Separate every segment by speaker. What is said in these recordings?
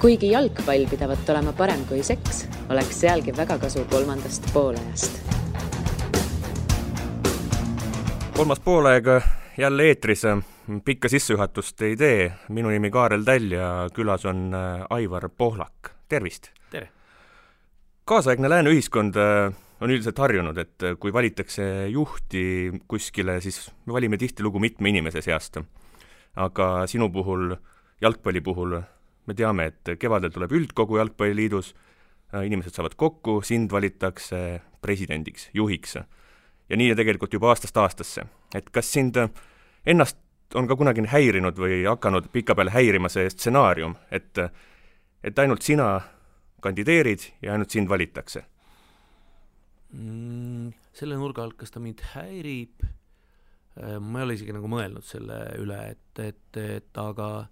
Speaker 1: Kuigi jalgpall pidavat olema parem kui seks, oleks sealgi väga kasu kolmandast poolajast.
Speaker 2: Kolmas poolaeg jälle eetris, pikka sissejuhatust ei tee. Minu nimi Kaarel Täll ja külas on Aivar Pohlak. Tervist!
Speaker 3: Tere!
Speaker 2: Kaasaegne lääne ühiskond on üldiselt harjunud, et kui valitakse juhti kuskile, siis me valime tihtilugu mitme inimese seast. Aga sinu puhul, jalgpalli puhul, me teame, et kevadel tuleb üldkogu jalgpalliliidus, inimesed saavad kokku, sind valitakse presidendiks, juhiks. Ja nii tegelikult juba aastast aastasse. Et kas sind ennast on ka kunagi häirinud või hakanud pika peale häirima see stsenaarium, et ainult sina kandideerid ja ainult sind valitakse?
Speaker 3: Selle nurga alt, kas ta mind häirib, ma ei ole isegi nagu mõelnud selle üle, aga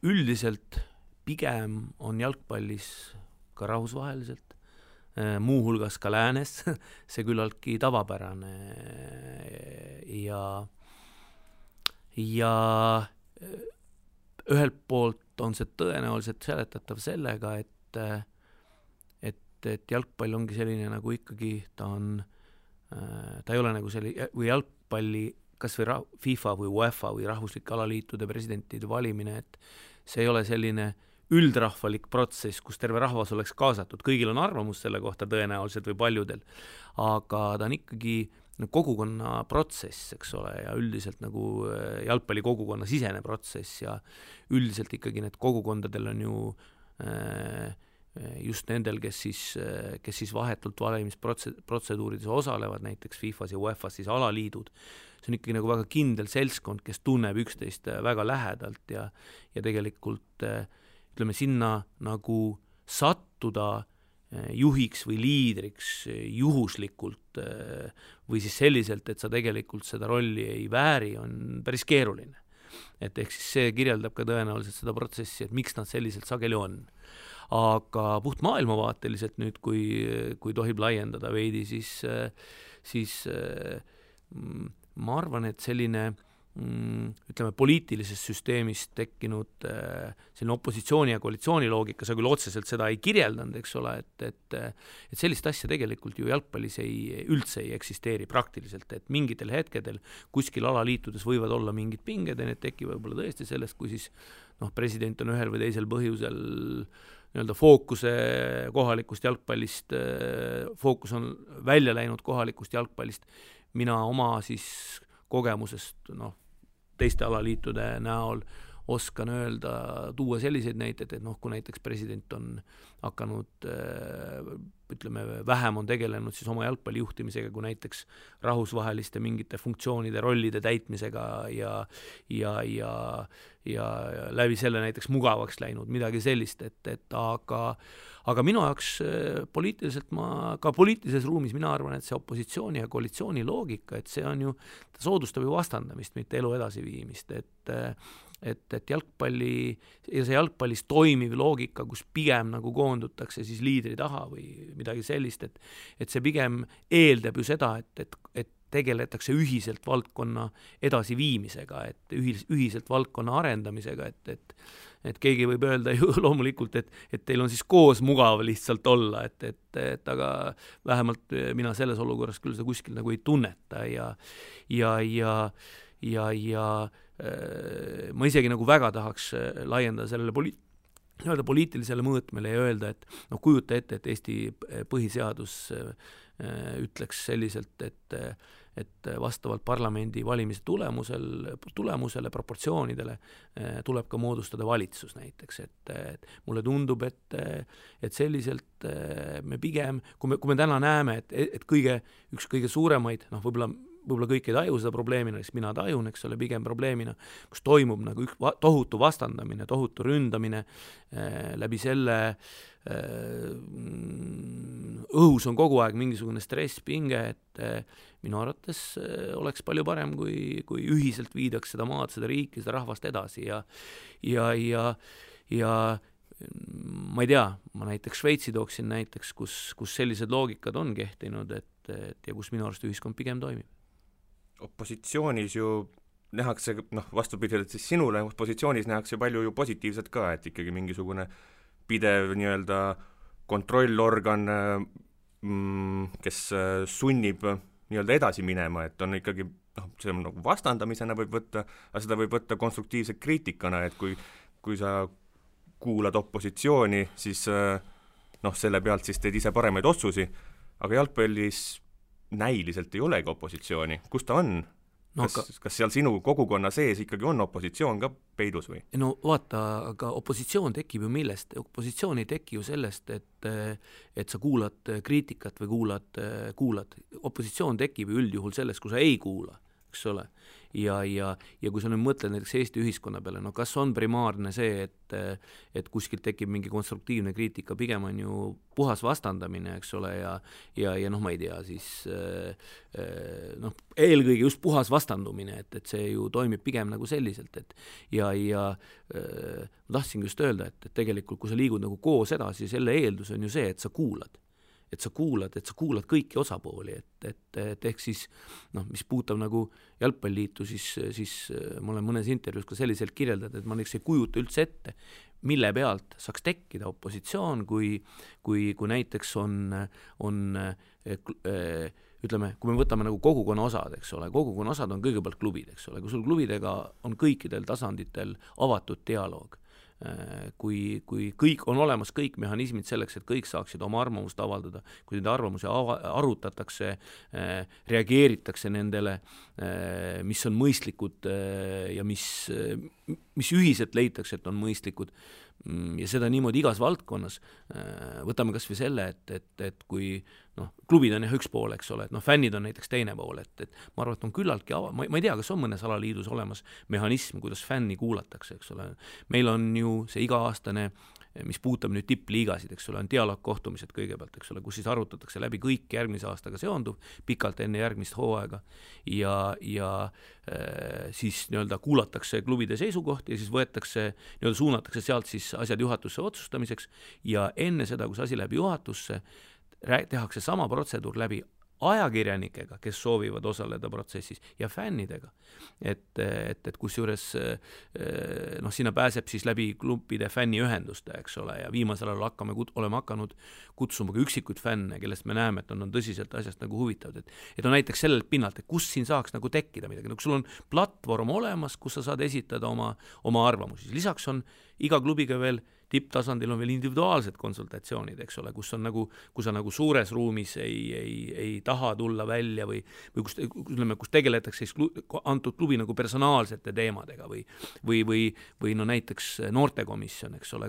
Speaker 3: üldiselt pigem on jalgpallis ka rahvusvaheliselt, muu hulgas ka läänes, see küllaltki tavapärane ja ühelt poolt on see tõenäoliselt seletatav sellega, et jalgpall ongi selline nagu ikkagi, ta ei ole nagu selline, või jalgpalli kas või FIFA või UEFA või rahvuslike alaliitude presidentide valimine, et see ei ole selline üldrahvalik protsess, kus terve rahvas oleks kaasatud. Kõigil on arvamus selle kohta tõenäoliselt või paljudel, aga ta on ikkagi kogukonna protsess, eks ole, ja üldiselt nagu jalgpalli kogukonna sisene protsess ja üldiselt ikkagi need kogukondadel on ju just nendel, kes siis vahetult valimisprotseduurides osalevad, näiteks FIFAs ja UEFAs siis alaliidud. See on ikkagi nagu väga kindel seltskond, kes tunneb üksteist väga lähedalt ja tegelikult ütleme sinna nagu sattuda juhiks või liidriks juhuslikult või siis selliselt, et sa tegelikult seda rolli ei vääri, on päris keeruline. Et ehk siis see kirjeldab ka tõenäoliselt seda protsessi, et miks nad selliselt sageli on. Aga puht maailmavaateliselt nüüd, kui tohib laiendada veidi, siis ma arvan, et selline ütleme poliitilises süsteemis tekkinud selline opositsiooni ja koalitsiooni loogika, sa küll otseselt seda ei kirjeldanud, eks ole, et sellist asja tegelikult ju jalgpallis üldse ei eksisteeri praktiliselt, et mingitel hetkedel kuskil alaliitudes võivad olla mingid pinged ja need tekivad võib-olla tõesti sellest, kui siis president on ühel või teisel põhjusel nii-öelda fookuse kohalikust jalgpallist, fookus on välja läinud kohalikust jalgpallist, mina oma siis kogemusest teiste alaliitude näol oskan öelda, tuua selliseid näiteid, et kui näiteks president on hakanud, ütleme, vähem on tegelenud siis oma jalgpalli juhtimisega kui näiteks rahvusvaheliste mingite funktsioonide, rollide täitmisega ja läbi selle näiteks mugavaks läinud, midagi sellist, aga minu jaoks poliitilises ruumis mina arvan, et see opositsiooni ja koalitsiooni loogika, et see on ju, ta soodustab ju vastandamist, mitte elu edasiviimist, et jalgpallis toimiv loogika, kus pigem nagu koondutakse siis liidri taha või midagi sellist, et see pigem eeldab ju seda, et tegeletakse ühiselt valdkonna edasiviimisega, et ühiselt valdkonna arendamisega, et keegi võib öelda ju loomulikult, et teil on siis koos mugav lihtsalt olla, aga vähemalt mina selles olukorras küll seda kuskil nagu ei tunneta ja ma isegi nagu väga tahaks laiendada sellele poliitilisele mõõtmele ja öelda, et kujuta ette, et Eesti põhiseadus ütleks selliselt, et vastavalt parlamendi valimise tulemusele, proportsioonidele tuleb ka moodustada valitsus näiteks, et mulle tundub, et selliselt me pigem, kui me täna näeme, et üks kõige suuremaid, võib-olla kõik ei taju seda probleemina, siis mina tajun, eks ole, pigem probleemina, kus toimub nagu tohutu vastandamine, tohutu ründamine, läbi selle õhus on kogu aeg mingisugune stress, pinge, et minu arvates oleks palju parem, kui ühiselt viidaks seda maad, seda riiki, seda rahvast edasi ja ma ei tea, ma näiteks Šveitsi tooksin näiteks, kus sellised loogikad on kehtinud, ja kus minu arust ühiskond pigem toimib.
Speaker 2: Opositsioonis ju nähakse, vastupidiselt siis sinule positsioonis nähakse palju ju positiivset ka, et ikkagi mingisugune pidev nii-öelda kontrollorgan, kes sunnib nii-öelda edasi minema, et on ikkagi, see on nagu vastandamisena võib võtta, aga seda võib võtta konstruktiivse kriitikana, et kui sa kuulad opositsiooni, siis selle pealt siis teed ise paremaid otsusi, aga jalgpallis näiliselt ei olegi opositsiooni. Kus ta on? Kas seal sinu kogukonna sees ikkagi on opositsioon ka peidus või?
Speaker 3: No vaata, aga opositsioon tekib ju millest? Opositsioon ei teki ju sellest, et sa kuulad kriitikat või kuulad. Opositsioon tekib ju üldjuhul sellest, kui sa ei kuula, eks ole. Ja kui sa nüüd mõtled näiteks Eesti ühiskonna peale, kas on primaarne see, et kuskilt tekib mingi konstruktiivne kriitika, pigem on ju puhas vastandamine, eks ole, ja ma ei tea, siis eelkõige just puhas vastandumine, et see ju toimib pigem nagu selliselt, ja ma tahtsin just öelda, et tegelikult kui sa liigud nagu koos edasi, selle eeldus on ju see, et sa kuulad kõiki osapooli, et ehk siis, mis puutab nagu jalgpalliliitu, siis ma olen mõnes intervjuus ka selliselt kirjeldanud, et ma ei kujuta üldse ette, mille pealt saaks tekkida opositsioon, kui näiteks on ütleme, kui me võtame nagu kogukonna osad, eks ole, kogukonna osad on kõigepealt klubid, eks ole, kui sul klubidega on kõikidel tasanditel avatud dialoog, kui kõik on olemas, kõik mehhanismid selleks, et kõik saaksid oma arvamust avaldada, kui nende arvamusi arutatakse, reageeritakse nendele, mis on mõistlikud ja mis ühiselt leitakse, et on mõistlikud, ja seda niimoodi igas valdkonnas. Võtame kas või selle, et kui klubid on üks pool, eks ole, et fännid on näiteks teine pool, et ma arvan, et on küllaltki ma ei tea, kas on mõnes alaliidus olemas mehhanism, kuidas fänni kuulatakse, eks ole. Meil on ju see iga-aastane, mis puutab nüüd tippliigasid, eks ole, on dialoogkohtumised kõigepealt, eks ole, kus siis arutatakse läbi kõik järgmise aastaga seonduv, pikalt enne järgmist hooaega ja siis nii-öelda kuulatakse klubide seisukohti ja siis võetakse, nii-öelda suunatakse sealt siis asjad juhatusse otsustamiseks ja enne seda, kui see asi läbi juhatusse, tehakse sama protseduur läbi ajakirjanikega, kes soovivad osaleda protsessis ja fännidega. Et kusjuures sinna pääseb siis läbi klubide fänniühenduste, eks ole, ja viimasel ajal oleme hakanud kutsuma ka üksikuid fänne, kellest me näeme, et on tõsiselt asjast nagu huvitavad. Et on näiteks sellelt pinnalt, et kus siin saaks nagu tekkida midagi. Kui sul on platvorm olemas, kus sa saad esitada oma arvamusi. Lisaks on iga klubiga veel tipptasandil on veel individuaalsed konsultatsioonid, eks ole, kus sa nagu suures ruumis ei taha tulla välja või kus tegeletakse siis antud klubi nagu personaalsete teemadega või näiteks noortekomisjon, eks ole,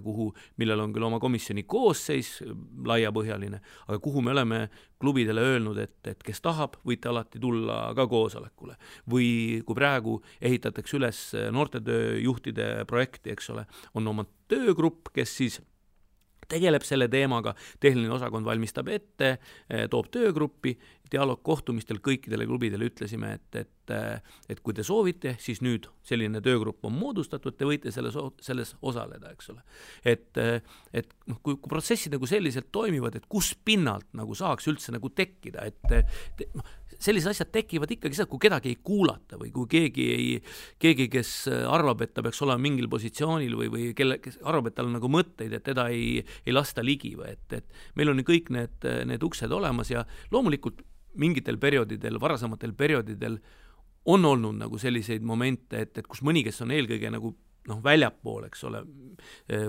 Speaker 3: millel on küll oma komisjoni koosseis laiapõhjaline, aga kuhu me oleme klubidele öelnud, et kes tahab, võite alati tulla ka koosolekule. Või kui praegu ehitatakse üles noortetööjuhtide projekti, eks ole, on oma töögrupp, kes siis tegeleb selle teemaga, tehniline osakond valmistab ette, toob töögruppi, dialoogkohtumistel kõikidele klubidele ütlesime, et kui te soovite, siis nüüd selline töögrupp on moodustatud, te võite selles osaleda, eks ole. Et kui protsessid nagu selliselt toimivad, et kus pinnalt nagu saaks üldse nagu tekkida, sellised asjad tekivad ikkagi seda, kui kedagi ei kuulata või kui keegi, kes arvab, et ta peaks olema mingil positsioonil või kes arvab, et tal on nagu mõtteid, et teda ei lasta ligi või et meil on kõik need uksed olemas ja loomulikult mingitel perioodidel, varasematel perioodidel on olnud nagu selliseid momente, et kus mõni, kes on eelkõige nagu väljapool, eks ole,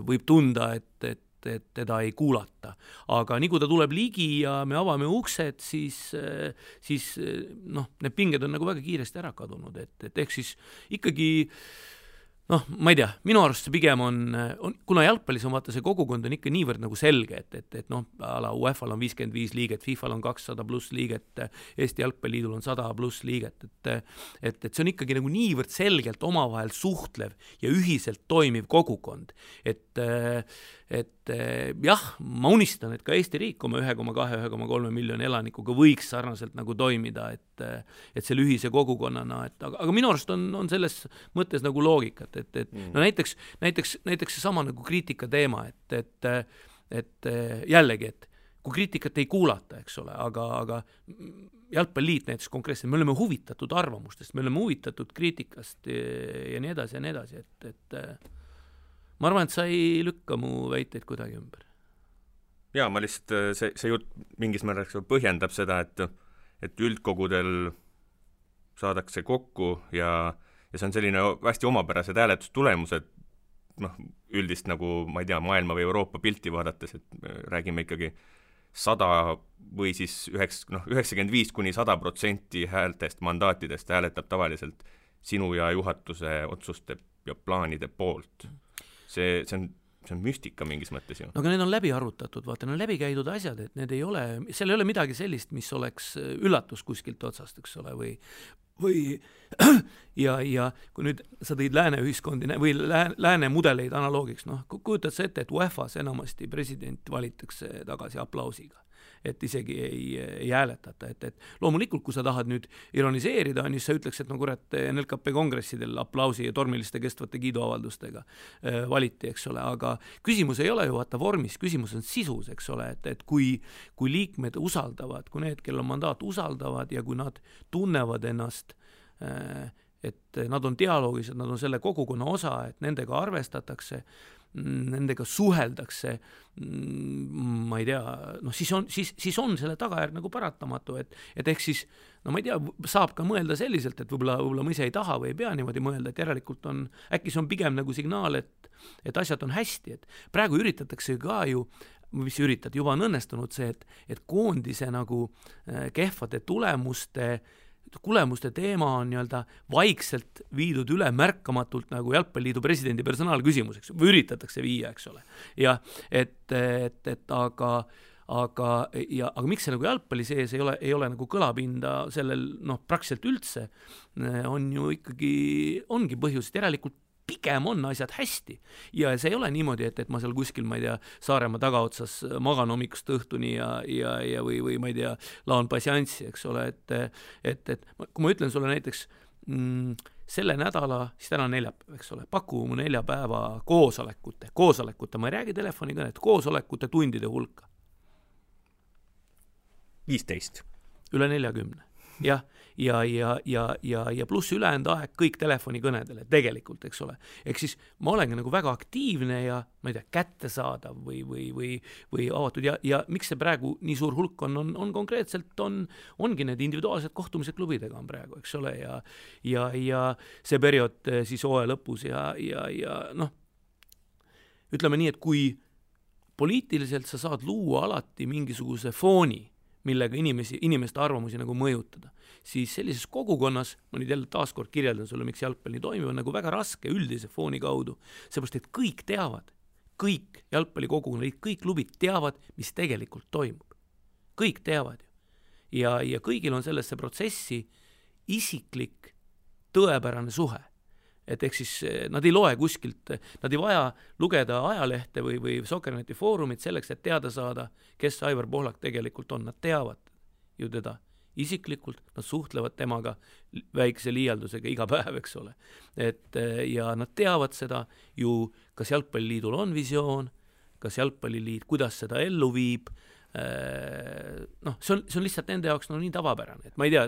Speaker 3: võib tunda, et teda ei kuulata. Aga nii kui ta tuleb ligi ja me avame uksed, siis need pinged on nagu väga kiiresti ära kadunud, et ehk siis ikkagi ma ei tea, minu arust see pigem on kuna jalgpallis on vaata see kogukond on ikka niivõrd nagu selge, et ala UEFA-l on 55 liiget, FIFA-l on 200 pluss liiget, Eesti jalgpalliliidul on 100 pluss liiget, et see on ikkagi nagu niivõrd selgelt omavahel suhtlev ja ühiselt toimiv kogukond, et jah, ma unistan, et ka Eesti riik oma 1,2–1,3 miljoni elanikuga võiks sarnaselt nagu toimida, et selle ühise kogukonnana, aga minu arust on selles mõttes nagu loogikat, näiteks see sama nagu kriitika teema, et jällegi, et kui kriitikat ei kuulata, eks ole, aga jalgpalliliit näiteks konkreetselt, me oleme huvitatud arvamustest, me oleme huvitatud kriitikast ja nii edasi, et ma arvan, et sa ei lükka mu väiteid kuidagi ümber.
Speaker 2: Jaa, ma lihtsalt, see jutt mingis määras põhjendab seda, et üldkogudel saadakse kokku ja see on selline hästi omapärased hääletustulemused, üldist nagu, ma ei tea, maailma või Euroopa pilti vaadates, et räägime ikkagi 100 või siis 95-100% häältest, mandaatidest hääletab tavaliselt sinu ja juhatuse otsuste ja plaanide poolt. See on müstika mingis mõttes ju.
Speaker 3: No aga need on läbi arvutatud, vaata, need on läbi käidud asjad, et need ei ole, seal ei ole midagi sellist, mis oleks üllatus kuskilt otsast, eks ole, või ja kui nüüd sa tõid lääne ühiskondi või lääne mudeleid analoogiks, kujutad sa ette, et UEFAs enamasti president valitakse tagasi aplausiga, et isegi ei hääletata, et loomulikult, kui sa tahad nüüd ironiseerida, on just sa ütleks, et kurat, NLKP kongressidel aplausi ja tormiliste kestvate kiiduavaldustega valiti, eks ole, aga küsimus ei ole ju vaata vormis, küsimus on sisus, eks ole, et kui liikmed usaldavad, kui need, kel on mandaat, usaldavad ja kui nad tunnevad ennast, et nad on dialoogis, et nad on selle kogukonna osa, et nendega arvestatakse, nendega suheldakse, ma ei tea, siis on selle tagajärg nagu paratamatu, et ehk siis, ma ei tea, saab ka mõelda selliselt, et võib-olla ma ise ei taha või ei pea niimoodi mõelda, et järelikult on, äkki see on pigem nagu signaal, et asjad on hästi, et praegu üritatakse ka ju, mis üritad, juba on õnnestunud see, et koondise nagu kehvade tulemuste teema on nii-öelda vaikselt viidud üle märkamatult nagu jalgpalliliidu presidendi personaalküsimuseks, või üritatakse viia, eks ole. Ja aga miks see nagu jalgpalli sees ei ole nagu kõlapinda sellel, praktiliselt üldse, on ju ikkagi, ongi põhjus, et järelikult pigem on asjad hästi ja see ei ole niimoodi, et ma seal kuskil, ma ei tea, Saaremaa tagaotsas magan hommikust õhtuni ja või ma ei tea, laon passianssi, eks ole, et kui ma ütlen sulle näiteks selle nädala, siis täna on neljapäev, eks ole, paku mu 4 päeva koosolekute, ma ei räägi telefonikõnet, koosolekute tundide hulka.
Speaker 2: 15.
Speaker 3: Üle 40. Jah, ja pluss ülejäänud aeg kõik telefonikõnedele tegelikult, eks ole. Ehk siis ma olengi nagu väga aktiivne ja ma ei tea, kättesaadav või avatud ja miks see praegu nii suur hulk on konkreetselt ongi need individuaalsed kohtumised klubidega on praegu, eks ole, ja see periood siis hooaja lõpus ja ütleme nii, et kui poliitiliselt sa saad luua alati mingisuguse fooni, millega inimeste arvamusi nagu mõjutada, siis sellises kogukonnas, ma nüüd jälle taaskord kirjeldan sulle, miks jalgpall nii toimib, on nagu väga raske üldise fooni kaudu, seepärast, et kõik teavad, kõik jalgpallikogukonnad, kõik klubid teavad, mis tegelikult toimub. Kõik teavad ju. Ja kõigil on sellesse protsessi isiklik tõepärane suhe. Et ehk siis nad ei loe kuskilt, nad ei vaja lugeda ajalehte või Sokkerneti foorumit selleks, et teada saada, kes Aivar Pohlak tegelikult on. Nad teavad ju teda isiklikult, nad suhtlevad temaga väikse liialdusega iga päev, eks ole. Ja nad teavad seda ju, kas jalgpalliliidul on visioon, kas jalgpalliliit, kuidas seda ellu viib, see on lihtsalt nende jaoks nii tavapärane, et ma ei tea,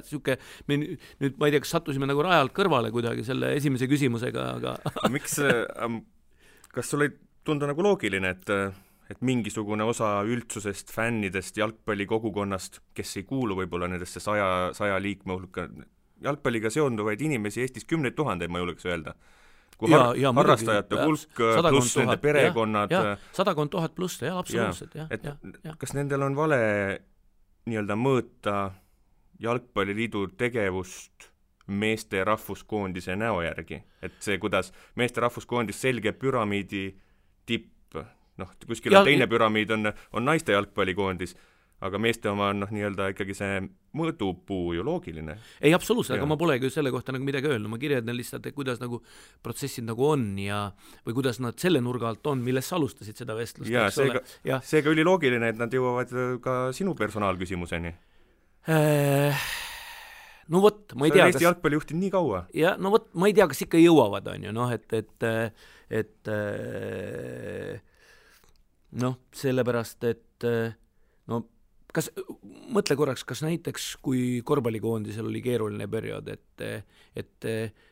Speaker 3: me nüüd ma ei tea, kas sattusime nagu rajalt kõrvale kuidagi selle esimese küsimusega, aga
Speaker 2: miks, kas sul ei tundu nagu loogiline, et mingisugune osa üldsusest, fännidest, jalgpallikogukonnast, kes ei kuulu võib-olla nendesse 100 liikme hulka, jalgpalliga seonduvaid inimesi Eestis 10 000, ma julgeks öelda, kui harrastajate hulk pluss nende perekonnad.
Speaker 3: 100 000 pluss, jah, absoluutselt.
Speaker 2: Kas nendel on vale nii-öelda mõõta jalgpalliliidu tegevust meeste rahvuskoondise näo järgi? Et see, kuidas meeste rahvuskoondis selge püramiidi tipp, kuskil on teine püramiid on naiste jalgpallikoondis, aga meeste oma on nii-öelda ikkagi see mõõdupuu ju loogiline.
Speaker 3: Ei, absoluutselt, aga ma polegi selle kohta nagu midagi öelnud, ma kirjeldan lihtsalt, et kuidas nagu protsessid nagu on või kuidas nad selle nurga alt on, milles sa alustasid seda vestlust.
Speaker 2: Seega oli loogiline, et nad jõuavad ka sinu personaalküsimuseni.
Speaker 3: No vot, ma ei tea,
Speaker 2: Eesti jalgpalli juhtinud nii kaua.
Speaker 3: Ja, no vot, ma ei tea, kas ikka jõuavad, on ju, sellepärast, et kas, mõtle korraks, kas näiteks, kui korvpallikoondisel oli keeruline periood, et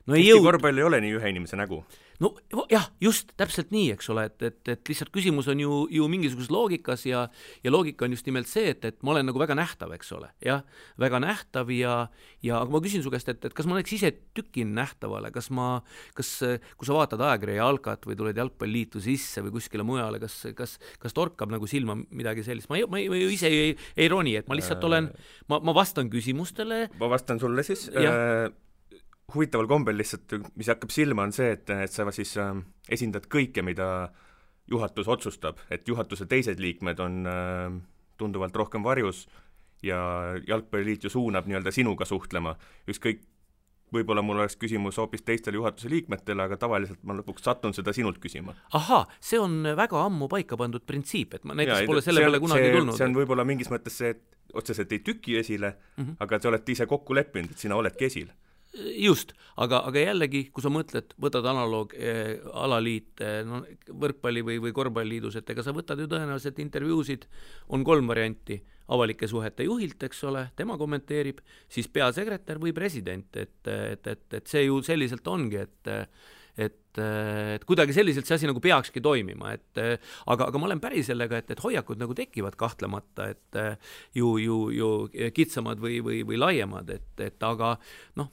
Speaker 3: no ei
Speaker 2: Eesti korvpall ei ole nii ühe inimese nägu.
Speaker 3: No jah, just täpselt nii, eks ole, et lihtsalt küsimus on ju mingisuguses loogikas ja loogika on just nimelt see, et ma olen nagu väga nähtav, eks ole, jah, väga nähtav ja aga ma küsin su käest, et kas ma oleks ise tükin nähtavale, kas kui sa vaatad ajakirja Jalkat või tuled jalgpalliliitu sisse või kuskile mujale, kas torkab nagu silma midagi sellist, ma ise ei roni, et ma lihtsalt olen, ma vastan küsimustele.
Speaker 2: Ma vastan sulle siis. Huvitaval kombel lihtsalt, mis hakkab silma, on see, et sa siis esindad kõike, mida juhatus otsustab, et juhatuse teised liikmed on tunduvalt rohkem varjus ja jalgpalliliit ju suunab nii-öelda sinuga suhtlema. Ükskõik, võib-olla mul oleks küsimus hoopis teistele juhatuse liikmetele, aga tavaliselt ma lõpuks satun seda sinult küsima.
Speaker 3: Aha, see on väga ammu paika pandud printsiip, et ma näiteks pole selle peale kunagi tulnud.
Speaker 2: See on võib-olla mingis mõttes see, et otseselt ei tüki esile, aga te olete ise kokku leppinud, et sina oledki esil.
Speaker 3: Just, aga jällegi, kui sa mõtled, võtad analoog alaliit võrkpalli või korvpalliliidus, et ega sa võtad ju tõenäoliselt intervjuusid, on 3 varianti, avalike suhete juhilt, eks ole, tema kommenteerib, siis peasekretär või president, et see ju selliselt ongi, et kuidagi selliselt see asi nagu peakski toimima, aga ma olen päri sellega, et hoiakud nagu tekivad kahtlemata, et ju kitsamad või laiemad, aga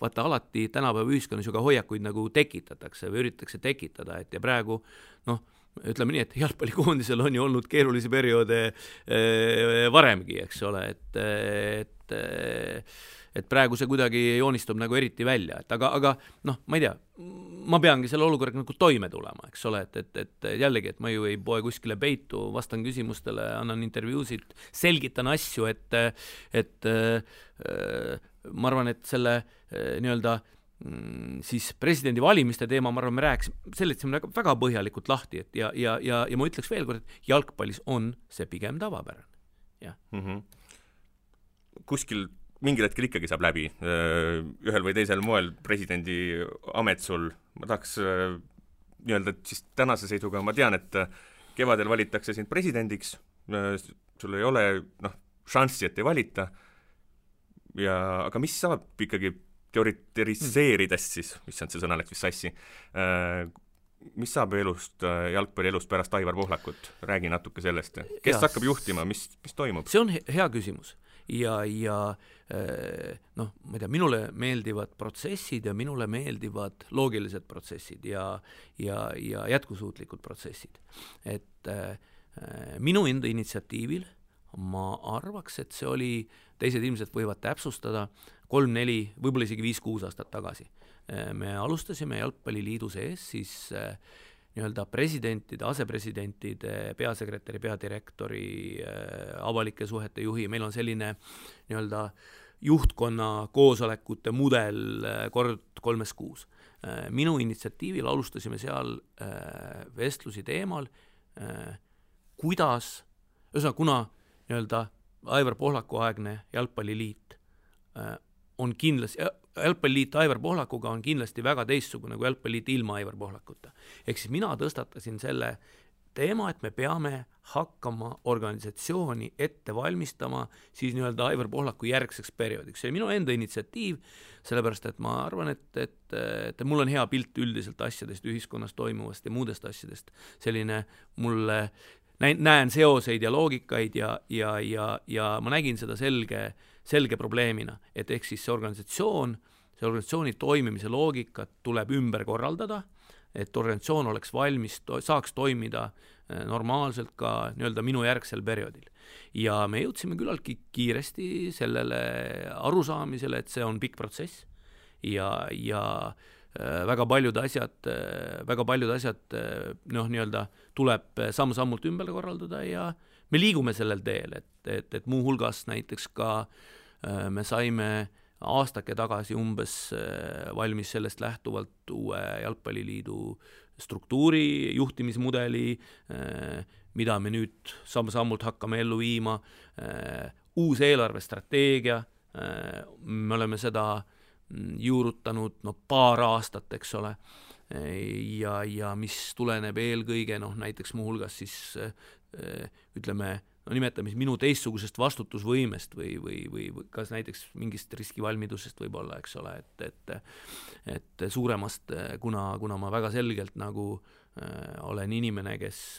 Speaker 3: vaata alati tänapäeva ühiskonnas ju ka hoiakuid nagu tekitatakse või üritatakse tekitada, ja praegu ütleme nii, et jalgpallikoondisel on ju olnud keerulisi perioode varemgi, eks ole, et praegu see kuidagi joonistub nagu eriti välja, aga ma ei tea, ma peangi selle olukorraga nagu toime tulema, eks ole, et jällegi, et ma ju ei poe kuskile peitu, vastan küsimustele, annan intervjuusid, selgitan asju, et ma arvan, et selle nii-öelda siis presidendi valimiste teema, ma arvan, me seletasime väga põhjalikult lahti, ja ma ütleks veel kord, et jalgpallis on see pigem tavapärane. Ja.
Speaker 2: Kuskil mingil hetkel ikkagi saab läbi ühel või teisel moel presidendi amet sul. Ma tahaks nii-öelda siis tänase seisuga, ma tean, et kevadel valitakse sind presidendiks, sul ei ole šanssi, et ei valita, aga mis saab ikkagi teoriseerides siis, mis on see sõna, läks vist sassi, mis saab jalgpallielust pärast Aivar Pohlakut? Räägi natuke sellest. Kes hakkab juhtima, mis toimub?
Speaker 3: See on hea küsimus. Ja ma ei tea, minule meeldivad protsessid ja minule meeldivad loogilised protsessid ja jätkusuutlikud protsessid. Et minu enda initsiatiivil ma arvaks, et see oli, teised ilmselt võivad täpsustada, 3-4, võib-olla isegi 5-6 aastat tagasi. Me alustasime jalgpalliliidu sees siis nii-öelda presidentide, asepresidentide, peasekretäri, peadirektori, avalike suhete juhi, meil on selline nii-öelda juhtkonna koosolekute mudel kord 3 kuus. Minu initsiatiivil alustasime seal vestlusi teemal, kuidas, kuna nii-öelda Aivar Pohlaku aegne jalgpalliliit on kindlasti, jalgpalliliit Aivar Pohlakuga on kindlasti väga teistsugune kui jalgpalliliit ilma Aivar Pohlakuta. Ehk siis mina tõstatasin selle teema, et me peame hakkama organisatsiooni ette valmistama siis nii-öelda Aivar Pohlaku järgseks perioodiks. See on minu enda initsiatiiv, sellepärast et ma arvan, et mul on hea pilt üldiselt asjadest, ühiskonnas toimuvast ja muudest asjadest. Selline mulle näen seoseid ja loogikaid ja ma nägin seda selge probleemina, et ehk siis see organisatsiooni toimimise loogikat tuleb ümber korraldada, et organisatsioon oleks valmis, saaks toimida normaalselt ka nii-öelda minu järgsel perioodil. Ja me jõudsime küllaltki kiiresti sellele arusaamisele, et see on pikk protsess ja väga paljud asjad nii-öelda tuleb samm-sammult ümber korraldada ja me liigume sellel teel, et muuhulgas näiteks ka me saime aastake tagasi umbes valmis sellest lähtuvalt uue jalgpalliliidu struktuuri, juhtimismudeli, mida me nüüd samm-sammult hakkame ellu viima, uus eelarvestrateegia, me oleme seda juurutanud paar aastat, eks ole, ja mis tuleneb eelkõige näiteks muuhulgas siis ütleme no nimetame minu teistsugusest vastutusvõimest või kas näiteks mingist riskivalmidusest võib-olla, eks ole, et suuremast, kuna ma väga selgelt nagu olen inimene, kes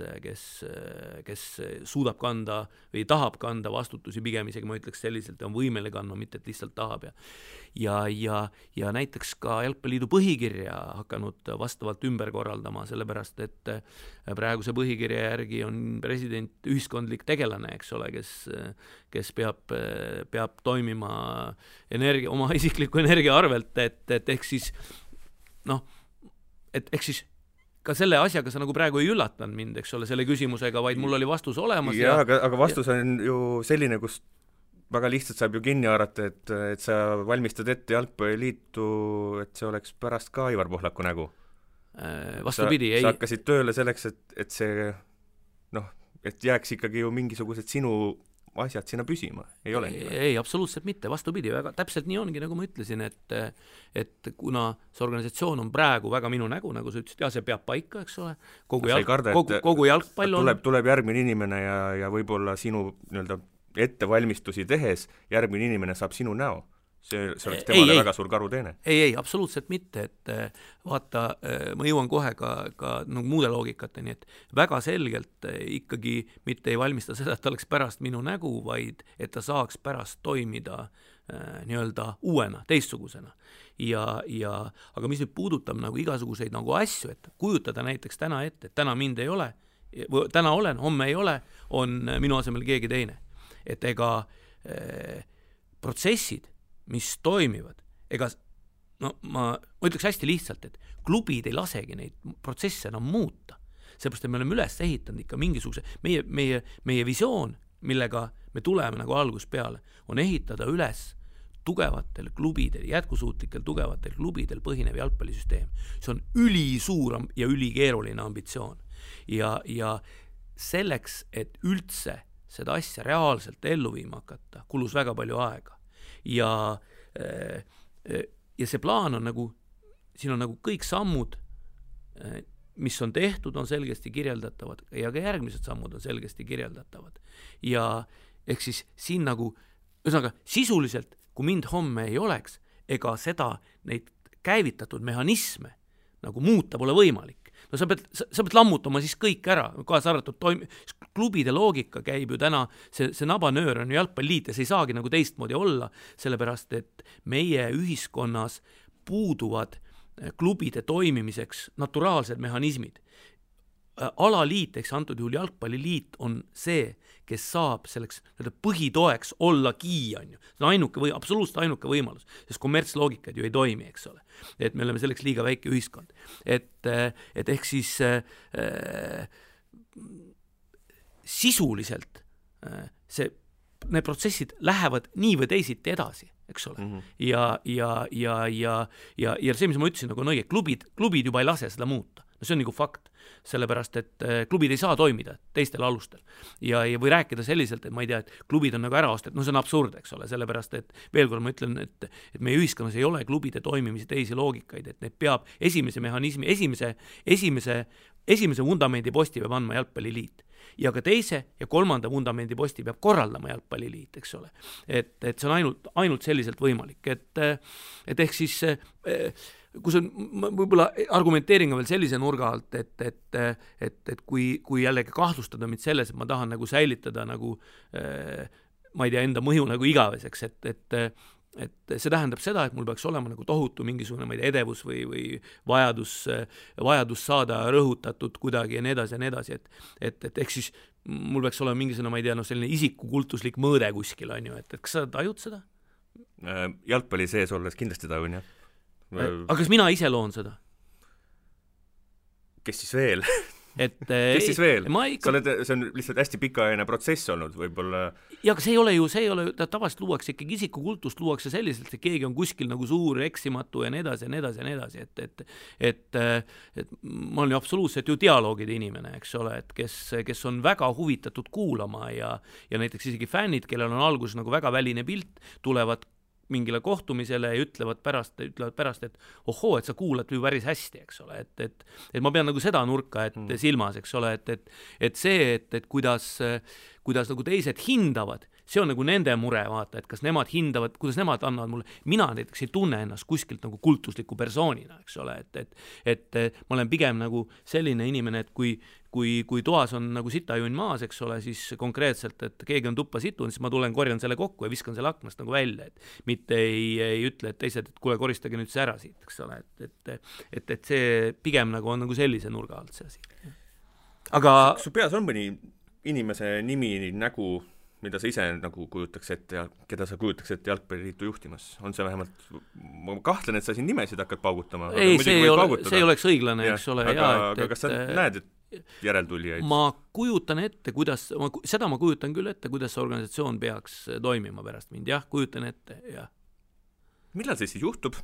Speaker 3: suudab kanda või tahab kanda vastutusi, pigem isegi ma ütleks selliselt, on võimeline kandma, mitte et lihtsalt tahab ja näiteks ka Jalgpalliliidu põhikirja hakanud vastavalt ümber korraldama, sellepärast et praeguse põhikirja järgi on president ühiskondlik tegelane, eks ole, kes peab toimima oma isikliku energia arvelt, et ehk siis ka selle asjaga sa nagu praegu ei üllatanud mind, eks ole, selle küsimusega, vaid mul oli vastus olemas.
Speaker 2: Aga vastus on ju selline, kus väga lihtsalt saab ju kinni haarata, et sa valmistad ette Jalgpalliliitu, et see oleks pärast ka Aivar Pohlaku nägu.
Speaker 3: Vastupidi,
Speaker 2: sa hakkasid tööle selleks, et see et jääks ikkagi ju mingisugused sinu asjad sinna püsima, ei ole nii?
Speaker 3: Ei, absoluutselt mitte, vastupidi, väga täpselt nii ongi, nagu ma ütlesin, et kuna see organisatsioon on praegu väga minu nägu, nagu sa ütlesid, see peab paika, eks ole, kogu jalgpall on...
Speaker 2: Tuleb järgmine inimene ja võib-olla sinu nii-öelda ettevalmistusi tehes järgmine inimene saab sinu näo. See oleks temale väga suur karuteene.
Speaker 3: Ei, absoluutselt mitte, et vaata, ma jõuan kohe ka muude loogikateni, et väga selgelt ikkagi mitte ei valmista seda, et ta oleks pärast minu nägu, vaid et ta saaks pärast toimida nii-öelda uuena, teistsugusena. Aga mis nüüd puudutab nagu igasuguseid nagu asju, et kujutada näiteks täna ette, et täna mind ei ole, täna olen, homme ei ole, on minu asemel keegi teine. Et ega protsessid, mis toimivad, ma ütleks hästi lihtsalt, et klubid ei lasegi neid protsesse enam muuta. Seepärast, et me oleme üles ehitanud ikka mingisuguse, meie visioon, millega me tuleme nagu algus peale, on ehitada üles tugevatel klubidel, jätkusuutlikel tugevatel klubidel põhinev jalgpallisüsteem. See on ülisuur ja ülikeeruline ambitsioon. Ja selleks, et üldse seda asja reaalselt ellu viima hakata, kulus väga palju aega. Ja see plaan on nagu, siin on nagu kõik sammud, mis on tehtud, on selgesti kirjeldatavad ja ka järgmised sammud on selgesti kirjeldatavad. Ja ehk siis siin nagu, ühesõnaga sisuliselt, kui mind homme ei oleks, ega seda neid käivitatud mehhanisme nagu muuta pole võimalik. No sa pead lammutama siis kõik ära, kaasa arvatud klubide loogika käib ju täna, see nabanöör on ju jalgpalliliit ja see ei saagi nagu teistmoodi olla, sellepärast et meie ühiskonnas puuduvad klubide toimimiseks naturaalsed mehhanismid. Alaliit, eks antud juhul jalgpalliliit on see, kes saab selleks põhitoeks ollagi, on ju. See on absoluutselt ainuke võimalus, sest kommertsloogikad ju ei toimi, eks ole. Et me oleme selleks liiga väike ühiskond. Et ehk siis sisuliselt need protsessid lähevad nii või teisiti edasi, eks ole. Ja see, mis ma ütlesin, nagu on õige, klubid juba ei lase seda muuta. No see on nagu fakt, sellepärast, et klubid ei saa toimida teistel alustel. Ja või rääkida selliselt, et ma ei tea, et klubid on nagu ära ostet, see on absurd, eks ole, sellepärast, et veel kord ma ütlen, et meie ühiskonnas ei ole klubide toimimise teisi loogikaid, et need peab esimese mehhanismi, esimese vundamendi posti peab andma jalgpalliliit. Ja ka teise ja kolmanda vundamendi posti peab korraldama jalgpalliliit, eks ole. Et see on ainult selliselt võimalik. Et ehk siis kus on võib-olla argumenteeringa veel sellise nurga alt, et kui jällegi kahtlustada mind selles, et ma tahan nagu säilitada nagu, ma ei tea, enda mõju nagu igaveseks, et see tähendab seda, et mul peaks olema nagu tohutu mingisugune, ma ei tea, edevus või vajadus saada rõhutatud kuidagi ja nii edasi, et ehk siis mul peaks olema mingisugune, ma ei tea, selline isikukultuslik mõõde kuskil, on ju, et kas sa tajud seda?
Speaker 2: Jalgpalli sees olles kindlasti tajun, jah.
Speaker 3: Aga kas mina ise loon seda?
Speaker 2: Kes siis veel? Kes siis veel? See on lihtsalt hästi pikaajaline protsess olnud võib-olla.
Speaker 3: Ja aga see ei ole, tavaliselt luuakse ikkagi isikukultust, luuakse selliselt, et keegi on kuskil nagu suur eksimatu ja nii edasi, et ma olen ju absoluutselt ju dialoogide inimene, eks ole, et kes on väga huvitatud kuulama ja näiteks isegi fännid, kellel on alguses nagu väga väline pilt, tulevad mingile kohtumisele ja ütlevad pärast, et ohoo, et sa kuulad ju päris hästi, eks ole, et ma pean nagu seda nurka silmas, eks ole, et see, et kuidas nagu teised hindavad, see on nagu nende mure, vaata, et kas nemad hindavad, kuidas nemad annavad mulle, mina näiteks ei tunne ennast kuskilt nagu kultusliku persoonina, eks ole, et ma olen pigem nagu selline inimene, et kui toas on nagu sitajunn maas, eks ole, siis konkreetselt, et keegi on tuppa situnud, siis ma tulen, korjan selle kokku ja viskan selle aknast nagu välja, et mitte ei ütle, et teised, et kuule, koristage nüüd see ära siit, eks ole, et see pigem nagu on nagu sellise nurga alt see asi. Aga
Speaker 2: su peas on mõni inimese nimi, nägu, mida sa ise nagu kujutaks ette ja keda sa kujutaks ette jalgpalliliitu juhtimas? On see vähemalt, ma kahtlen, et sa siin nimesid hakkad paugutama.
Speaker 3: Ei, see ei oleks õiglane, eks ole.
Speaker 2: Aga kas sa näed, et järeltulijaid?
Speaker 3: Ma kujutan ette, seda ma kujutan küll ette, kuidas see organisatsioon peaks toimima pärast mind. Jah, kujutan ette, jah.
Speaker 2: Millal see siis juhtub?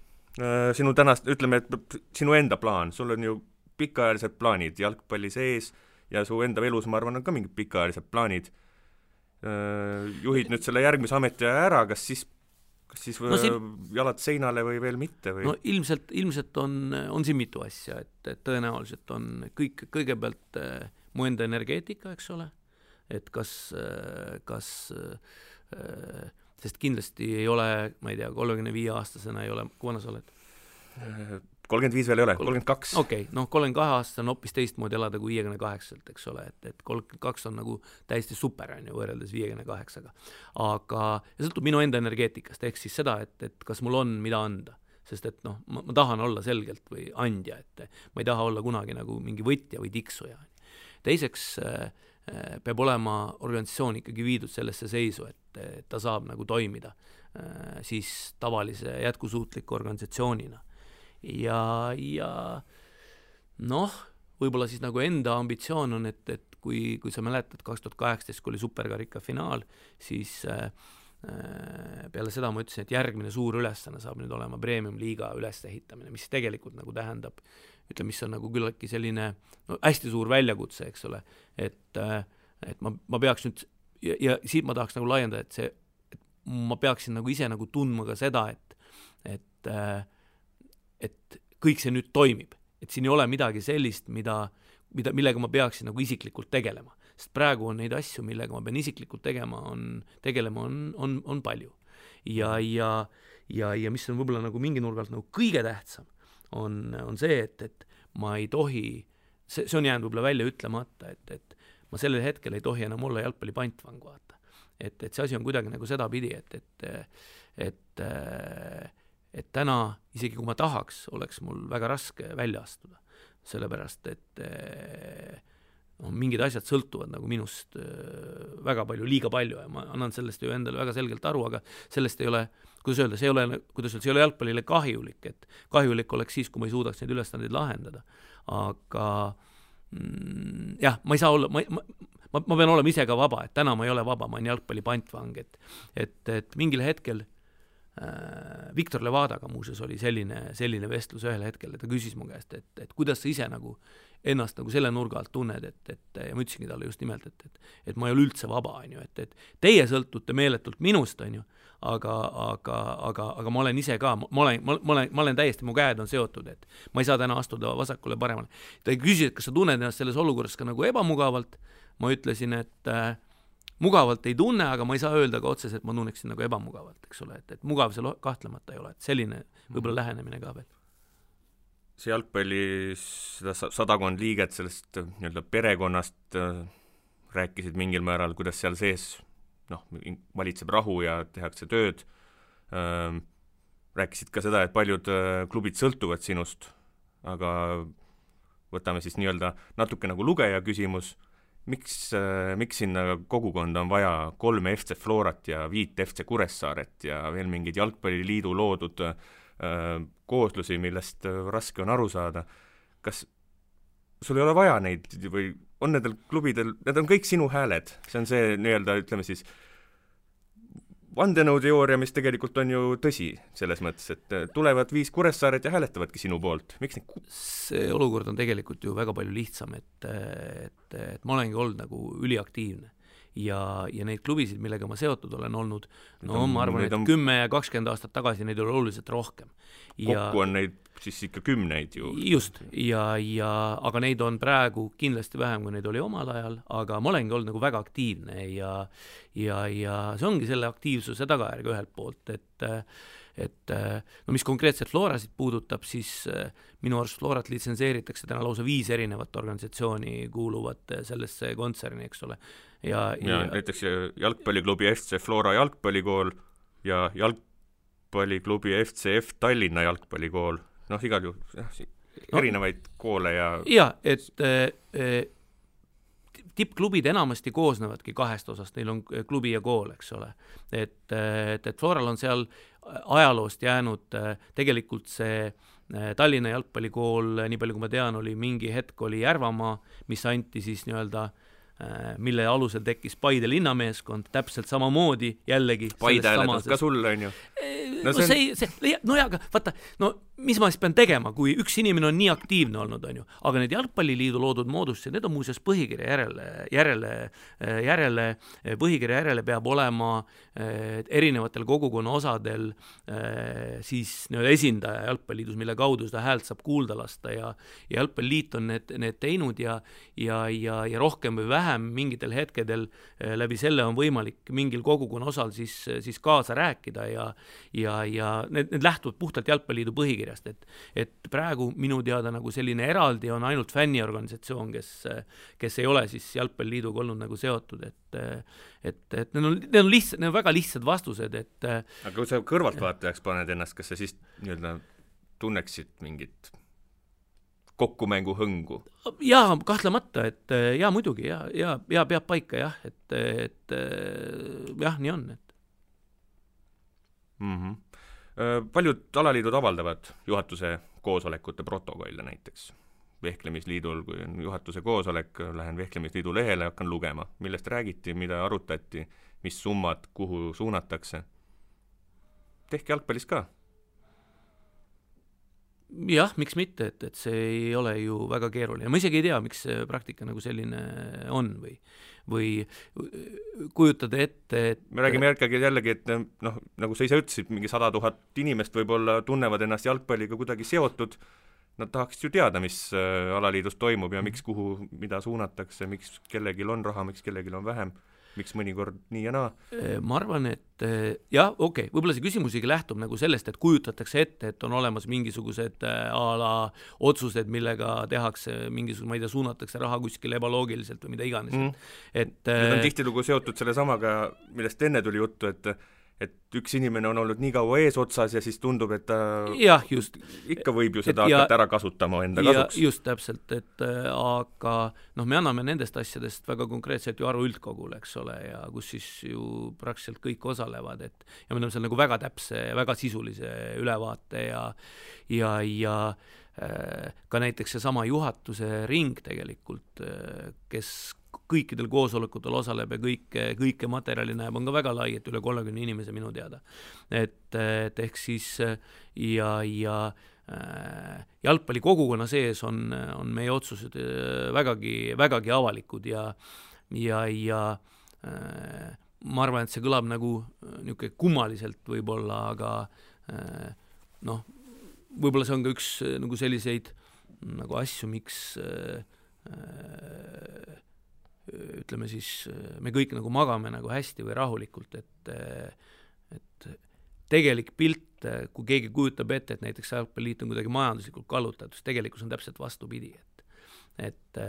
Speaker 2: Sinu tänast, ütleme, et sinu enda plaan, sul on ju pikaajalised plaanid jalgpalli sees ja su enda elus, ma arvan, on ka mingid pikaajalised plaanid. Juhid nüüd selle järgmise ameti ära, kas siis jalad seinale või veel mitte? Või?
Speaker 3: No ilmselt on siin mitu asja, et tõenäoliselt on kõigepealt mu enda energeetika, eks ole, et kas sest kindlasti ei ole, ma ei tea, 35-aastasena ei ole, kui vana sa oled?
Speaker 2: 35 veel ei ole, 32.
Speaker 3: Okei, 32 on hoopis teistmoodi elada kui 58, eks ole, et 32 on nagu täiesti super, on ju, võrreldes 58-ga. Aga ja sõltub minu enda energeetikast, ehk siis seda, et kas mul on mida anda, sest et ma tahan olla selgelt või andja, et ma ei taha olla kunagi nagu mingi võtja või tiksuja. Teiseks peab olema organisatsioon ikkagi viidud sellesse seisu, et ta saab nagu toimida siis tavalise jätkusuutliku organisatsioonina. Ja võib-olla siis nagu enda ambitsioon on, et kui sa mäletad 2018, kui oli superkarika finaal, siis peale seda ma ütlesin, et järgmine suur ülesanne saab nüüd olema premium-liiga ülesehitamine, mis tegelikult nagu tähendab, ütleme, mis on nagu küllaltki selline hästi suur väljakutse, eks ole, et ma peaks nüüd, ja siit ma tahaks nagu laiendada, et ma peaksin nagu ise nagu tundma ka seda, et kõik see nüüd toimib, et siin ei ole midagi sellist, millega ma peaksin nagu isiklikult tegelema, sest praegu on neid asju, millega ma pean isiklikult tegelema on palju. Ja mis on võib-olla nagu mingi nurgalt nagu kõige tähtsam, on see, et ma ei tohi, see on jäänud võib-olla välja ütlemata, et ma sellel hetkel ei tohi enam olla jalgpalli pantvang, vaata. Et see asi on kuidagi nagu seda pidi, et täna, isegi kui ma tahaks, oleks mul väga raske välja astuda, sellepärast, et mingid asjad sõltuvad nagu minust väga palju, liiga palju ja ma annan sellest ju endale väga selgelt aru, aga sellest ei ole, kuidas öelda, see ei ole jalgpallile kahjulik, et kahjulik oleks siis, kui ma ei suudaks neid ülestandeid lahendada, aga jah, ma ei saa olla, ma pean olema ise ka vaba, et täna ma ei ole vaba, ma olen jalgpalli pantvang, et mingil hetkel Viktor Levadaga muuseas oli selline vestlus ühel hetkel, et ta küsis mu käest, et kuidas sa ise nagu ennast nagu selle nurga alt tunned, ja ma ütlesingi talle just nimelt, et ma ei ole üldse vaba, on ju, et teie sõltute meeletult minust, on ju, aga ma olen ise ka, ma olen täiesti, mu käed on seotud, et ma ei saa täna astuda vasakule paremale. Ta küsis, et kas sa tunned ennast selles olukorras ka nagu ebamugavalt, ma ütlesin, et mugavalt ei tunne, aga ma ei saa öelda ka otseselt, et ma tunneksin nagu ebamugavalt, eks ole, et mugav see kahtlemata ei ole, et selline võib-olla lähenemine ka veel.
Speaker 2: See jalgpallis seda 100 liiget sellest nii-öelda perekonnast rääkisid mingil määral, kuidas seal sees valitseb rahu ja tehakse tööd. Rääkisid ka seda, et paljud klubid sõltuvad sinust, aga võtame siis nii-öelda natuke nagu lugeja küsimus, miks sinna kogukonda on vaja 3 FC Florat ja 5 FC Kuressaaret ja veel mingid jalgpalliliidu loodud kooslusi, millest raske on aru saada. Kas sul ei ole vaja neid või on nendel klubidel, need on kõik sinu hääled, see on see nii-öelda, ütleme siis, vandenõuteooria, mis tegelikult on ju tõsi selles mõttes, et tulevad 5 Kuressaaret ja hääletavadki sinu poolt. Miks neid?
Speaker 3: See olukord on tegelikult ju väga palju lihtsam, et ma olengi olnud nagu üliaktiivne ja neid klubisid, millega ma seotud olen olnud, no ma arvan, et 10 ja 20 aastat tagasi neid oli oluliselt rohkem.
Speaker 2: Kokku on neid siis ikka 10 ju.
Speaker 3: Just, aga neid on praegu kindlasti vähem, kui neid oli omal ajal, aga ma olengi olnud nagu väga aktiivne ja see ongi selle aktiivsuse tagajärg ühelt poolt, et no mis konkreetselt Florasid puudutab, siis minu arust Florat litsenseeritakse täna lausa 5 erinevat organisatsiooni kuuluvat sellesse kontserni, eks ole. Ja
Speaker 2: näiteks jalgpalliklubi FC Flora jalgpallikool ja jalgpalliklubi FCF Tallinna jalgpallikool, noh igal juhul erinevaid koole ja et tippklubid enamasti koosnevadki 2 osast, neil on klubi ja kool, eks ole. Et Floral on seal ajaloost jäänud tegelikult see Tallinna jalgpallikool, nii palju kui ma tean, oli mingi hetk oli Järvamaa, mis anti siis nii-öelda mille alusel tekkis Paide linnameeskond, täpselt samamoodi jällegi Paide hääletas ka sulle, on ju?
Speaker 3: Aga vaata, mis ma siis pean tegema, kui üks inimene on nii aktiivne olnud, on ju, aga need jalgpalliliidu loodud moodustused, need on muuseas põhikirja järele peab olema erinevatel kogukonna osadel siis esindaja jalgpalliliidus, mille kaudu seda häält saab kuulda lasta ja jalgpalliliit on need teinud ja rohkem või vähem mingitel hetkedel läbi selle on võimalik mingil kogukonna osal siis kaasa rääkida ja need lähtuvad puhtalt jalgpalliliidu põhikirjast, et praegu minu teada nagu selline eraldi on ainult fänniorganisatsioon, kes ei ole siis jalgpalliliiduga olnud nagu seotud, et need on väga lihtsad vastused, et
Speaker 2: aga kui sa kõrvaltvaatajaks paned ennast, kas sa siis nii-öelda tunneksid mingit kokkumängu hõngu?
Speaker 3: Jaa, kahtlemata, et jaa, muidugi, ja peab paika, jah, et jah, nii on, et
Speaker 2: Paljud alaliidud avaldavad juhatuse koosolekute protokolle näiteks. Vehklemisliidul, kui on juhatuse koosolek, lähen Vehklemisliidu lehele, hakkan lugema, millest räägiti, mida arutati, mis summad, kuhu suunatakse. Tehke jalgpallis ka.
Speaker 3: Jah, miks mitte, et see ei ole ju väga keeruline. Ma isegi ei tea, miks see praktika nagu selline on või kujutada ette, et
Speaker 2: me räägime jällegi, et nagu sa ise ütlesid, mingi 100 000 inimest võib-olla tunnevad ennast jalgpalliga kuidagi seotud, nad tahaks ju teada, mis alaliidus toimub ja miks kuhu, mida suunatakse, miks kellelgi on raha, miks kellelgi on vähem, miks mõnikord nii ja naa?
Speaker 3: Ma arvan, et jah, okei, võib-olla see küsimus isegi lähtub nagu sellest, et kujutatakse ette, et on olemas mingisugused otsused, millega tehakse mingisugune, ma ei tea, suunatakse raha kuskile ebaloogiliselt või mida iganes.
Speaker 2: Need on tihtilugu seotud selle samaga, millest enne tuli juttu, et üks inimene on olnud nii kaua eesotsas ja siis tundub, et ta
Speaker 3: just,
Speaker 2: ikka võib ju seda hakata ära kasutama enda kasuks.
Speaker 3: Just täpselt, aga me anname nendest asjadest väga konkreetselt ju aru üldkogule, eks ole, ja kus siis ju praktiliselt kõik osalevad, ja me oleme seal nagu väga täpse, väga sisulise ülevaate ja ka näiteks seesama juhatuse ring tegelikult, kes kõikidel koosolekutel osaleb ja kõike materjali näeb, on ka väga lai, et üle 30 inimese minu teada. Et ehk siis ja jalgpalli kogukonna sees on meie otsused vägagi avalikud ja ma arvan, et see kõlab nagu niisugune kummaliselt võib-olla, aga võib-olla see on ka üks nagu selliseid nagu asju, miks ütleme siis, me kõik nagu magame nagu hästi või rahulikult, et tegelik pilt, kui keegi kujutab ette, et näiteks jalgpalliliit on kuidagi majanduslikult kallutatud, siis tegelikkus on täpselt vastupidi, et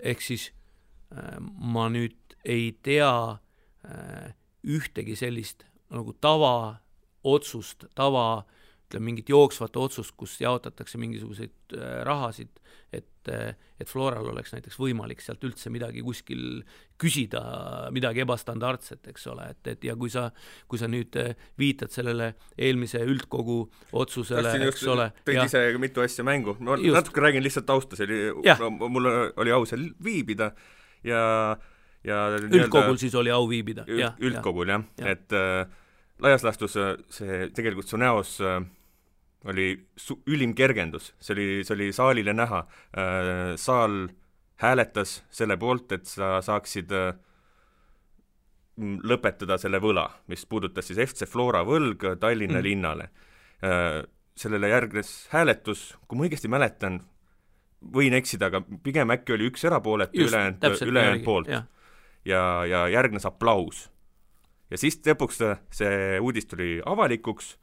Speaker 3: ehk siis ma nüüd ei tea ühtegi sellist nagu otsust, ütleme mingit jooksvat otsust, kus jaotatakse mingisuguseid rahasid, et Floral oleks näiteks võimalik sealt üldse midagi kuskil küsida, midagi ebastandardset, eks ole, et ja kui sa nüüd viitad sellele eelmise üldkogu otsusele, eks ole.
Speaker 2: Tõid ise mitu asja mängu. Ma natuke räägin lihtsalt tausta, mul oli au seal viibida ja
Speaker 3: üldkogul siis oli au viibida.
Speaker 2: Üldkogul, jah. Et laias laastus see tegelikult su näos oli ülim kergendus, see oli saalile näha, saal hääletas selle poolt, et sa saaksid lõpetada selle võla, mis puudutas siis FC Flora võlg Tallinna linnale. Sellele järgnes hääletus, kui ma õigesti mäletan, võin eksida, aga pigem äkki oli üks erapooletu ülejäänud poolt. Ja järgnes aplaus. Ja siis lõpuks see uudis tuli avalikuks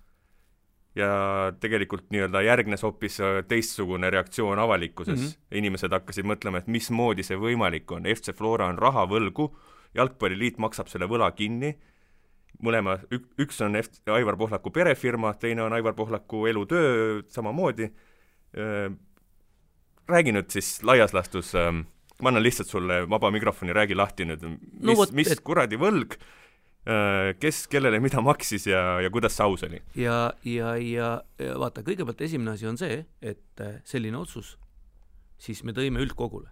Speaker 2: ja tegelikult nii-öelda järgnes hoopis teistsugune reaktsioon avalikkuses. Inimesed hakkasid mõtlema, et mismoodi see võimalik on. FC Flora on raha võlgu, jalgpalliliit maksab selle võla kinni, mõlema, üks on Aivar Pohlaku perefirma, teine on Aivar Pohlaku elutöö samamoodi. Räägi nüüd siis laias lastus, ma annan lihtsalt sulle vaba mikrofoni, räägi lahti nüüd, mis kuradi võlg, kes kellele mida maksis ja kuidas see aus oli?
Speaker 3: Ja vaata, kõigepealt esimene asi on see, et selline otsus siis me tõime üldkogule.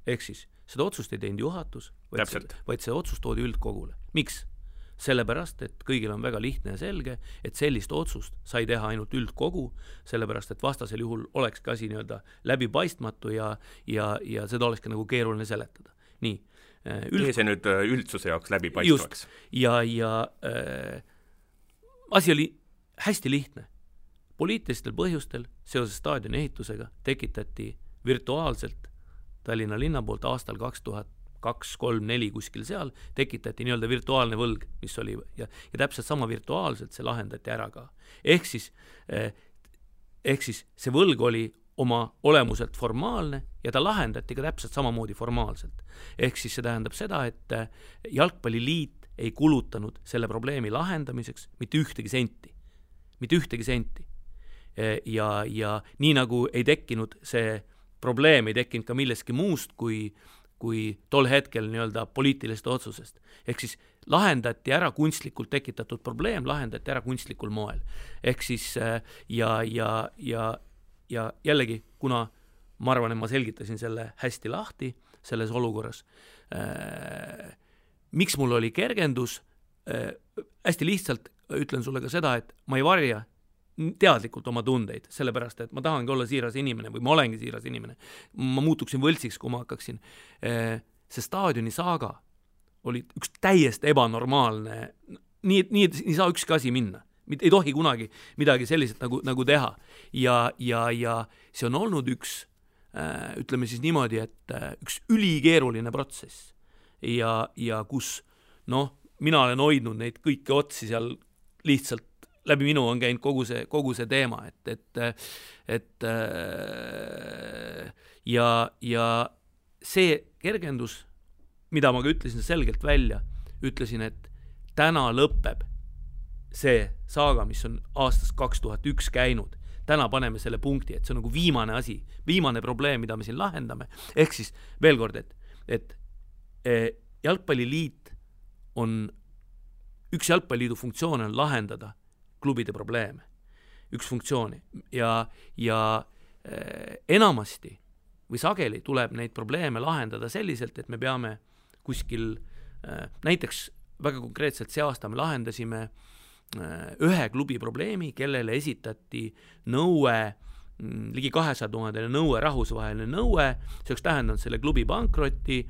Speaker 3: Ehk siis seda otsust ei teinud juhatus, vaid see otsus toodi üldkogule. Miks? Sellepärast, et kõigil on väga lihtne ja selge, et sellist otsust sai teha ainult üldkogu, sellepärast, et vastasel juhul olekski asi nii-öelda läbipaistmatu ja seda olekski nagu keeruline seletada. Nii.
Speaker 2: Tee see nüüd üldsuse jaoks läbipaistvaks.
Speaker 3: Asi oli hästi lihtne. Poliitilistel põhjustel seoses staadioni ehitusega tekitati virtuaalselt Tallinna linna poolt aastal 2002-2003-2004 kuskil seal, tekitati nii-öelda virtuaalne võlg, mis oli, ja täpselt sama virtuaalselt see lahendati ära ka. Ehk siis see võlg oli oma olemuselt formaalne ja ta lahendati ka täpselt samamoodi formaalselt. Ehk siis see tähendab seda, et jalgpalliliit ei kulutanud selle probleemi lahendamiseks mitte ühtegi senti. Ja nii nagu ei tekkinud see probleem, ei tekkinud ka milleski muust kui tol hetkel nii-öelda poliitiliste otsusest. Ehk siis lahendati ära kunstlikult tekitatud probleem, lahendati ära kunstlikul moel. Ehk siis ja jällegi, kuna ma arvan, et ma selgitasin selle hästi lahti selles olukorras, miks mul oli kergendus, hästi lihtsalt ütlen sulle ka seda, et ma ei varja teadlikult oma tundeid, sellepärast, et ma tahangi olla siiras inimene või ma olengi siiras inimene. Ma muutuksin võltsiks, kui ma hakkaksin. See staadioni saaga oli üks täiesti ebanormaalne, nii saa ükski asi minna. Ei tohi kunagi midagi selliselt nagu teha. Ja see on olnud üks, ütleme siis niimoodi, et üks ülikeeruline protsess. Ja kus, mina olen hoidnud neid kõiki otsi seal lihtsalt läbi minu on käinud kogu see teema, ja see kergendus, mida ma ka ütlesin selgelt välja, ütlesin, et täna lõpeb see saaga, mis on aastast 2001 käinud. Täna paneme selle punkti, et see on nagu viimane asi, viimane probleem, mida me siin lahendame. Ehk siis veel kord, et jalgpalliliit on, üks jalgpalliliidu funktsioon on lahendada klubide probleeme, üks funktsiooni ja enamasti või sageli tuleb neid probleeme lahendada selliselt, et me peame kuskil, näiteks väga konkreetselt see aasta me lahendasime ühe klubi probleemi, kellele esitati nõue, ligi 200 000 nõue, rahvusvaheline nõue, see oleks tähendanud selle klubi pankrotti,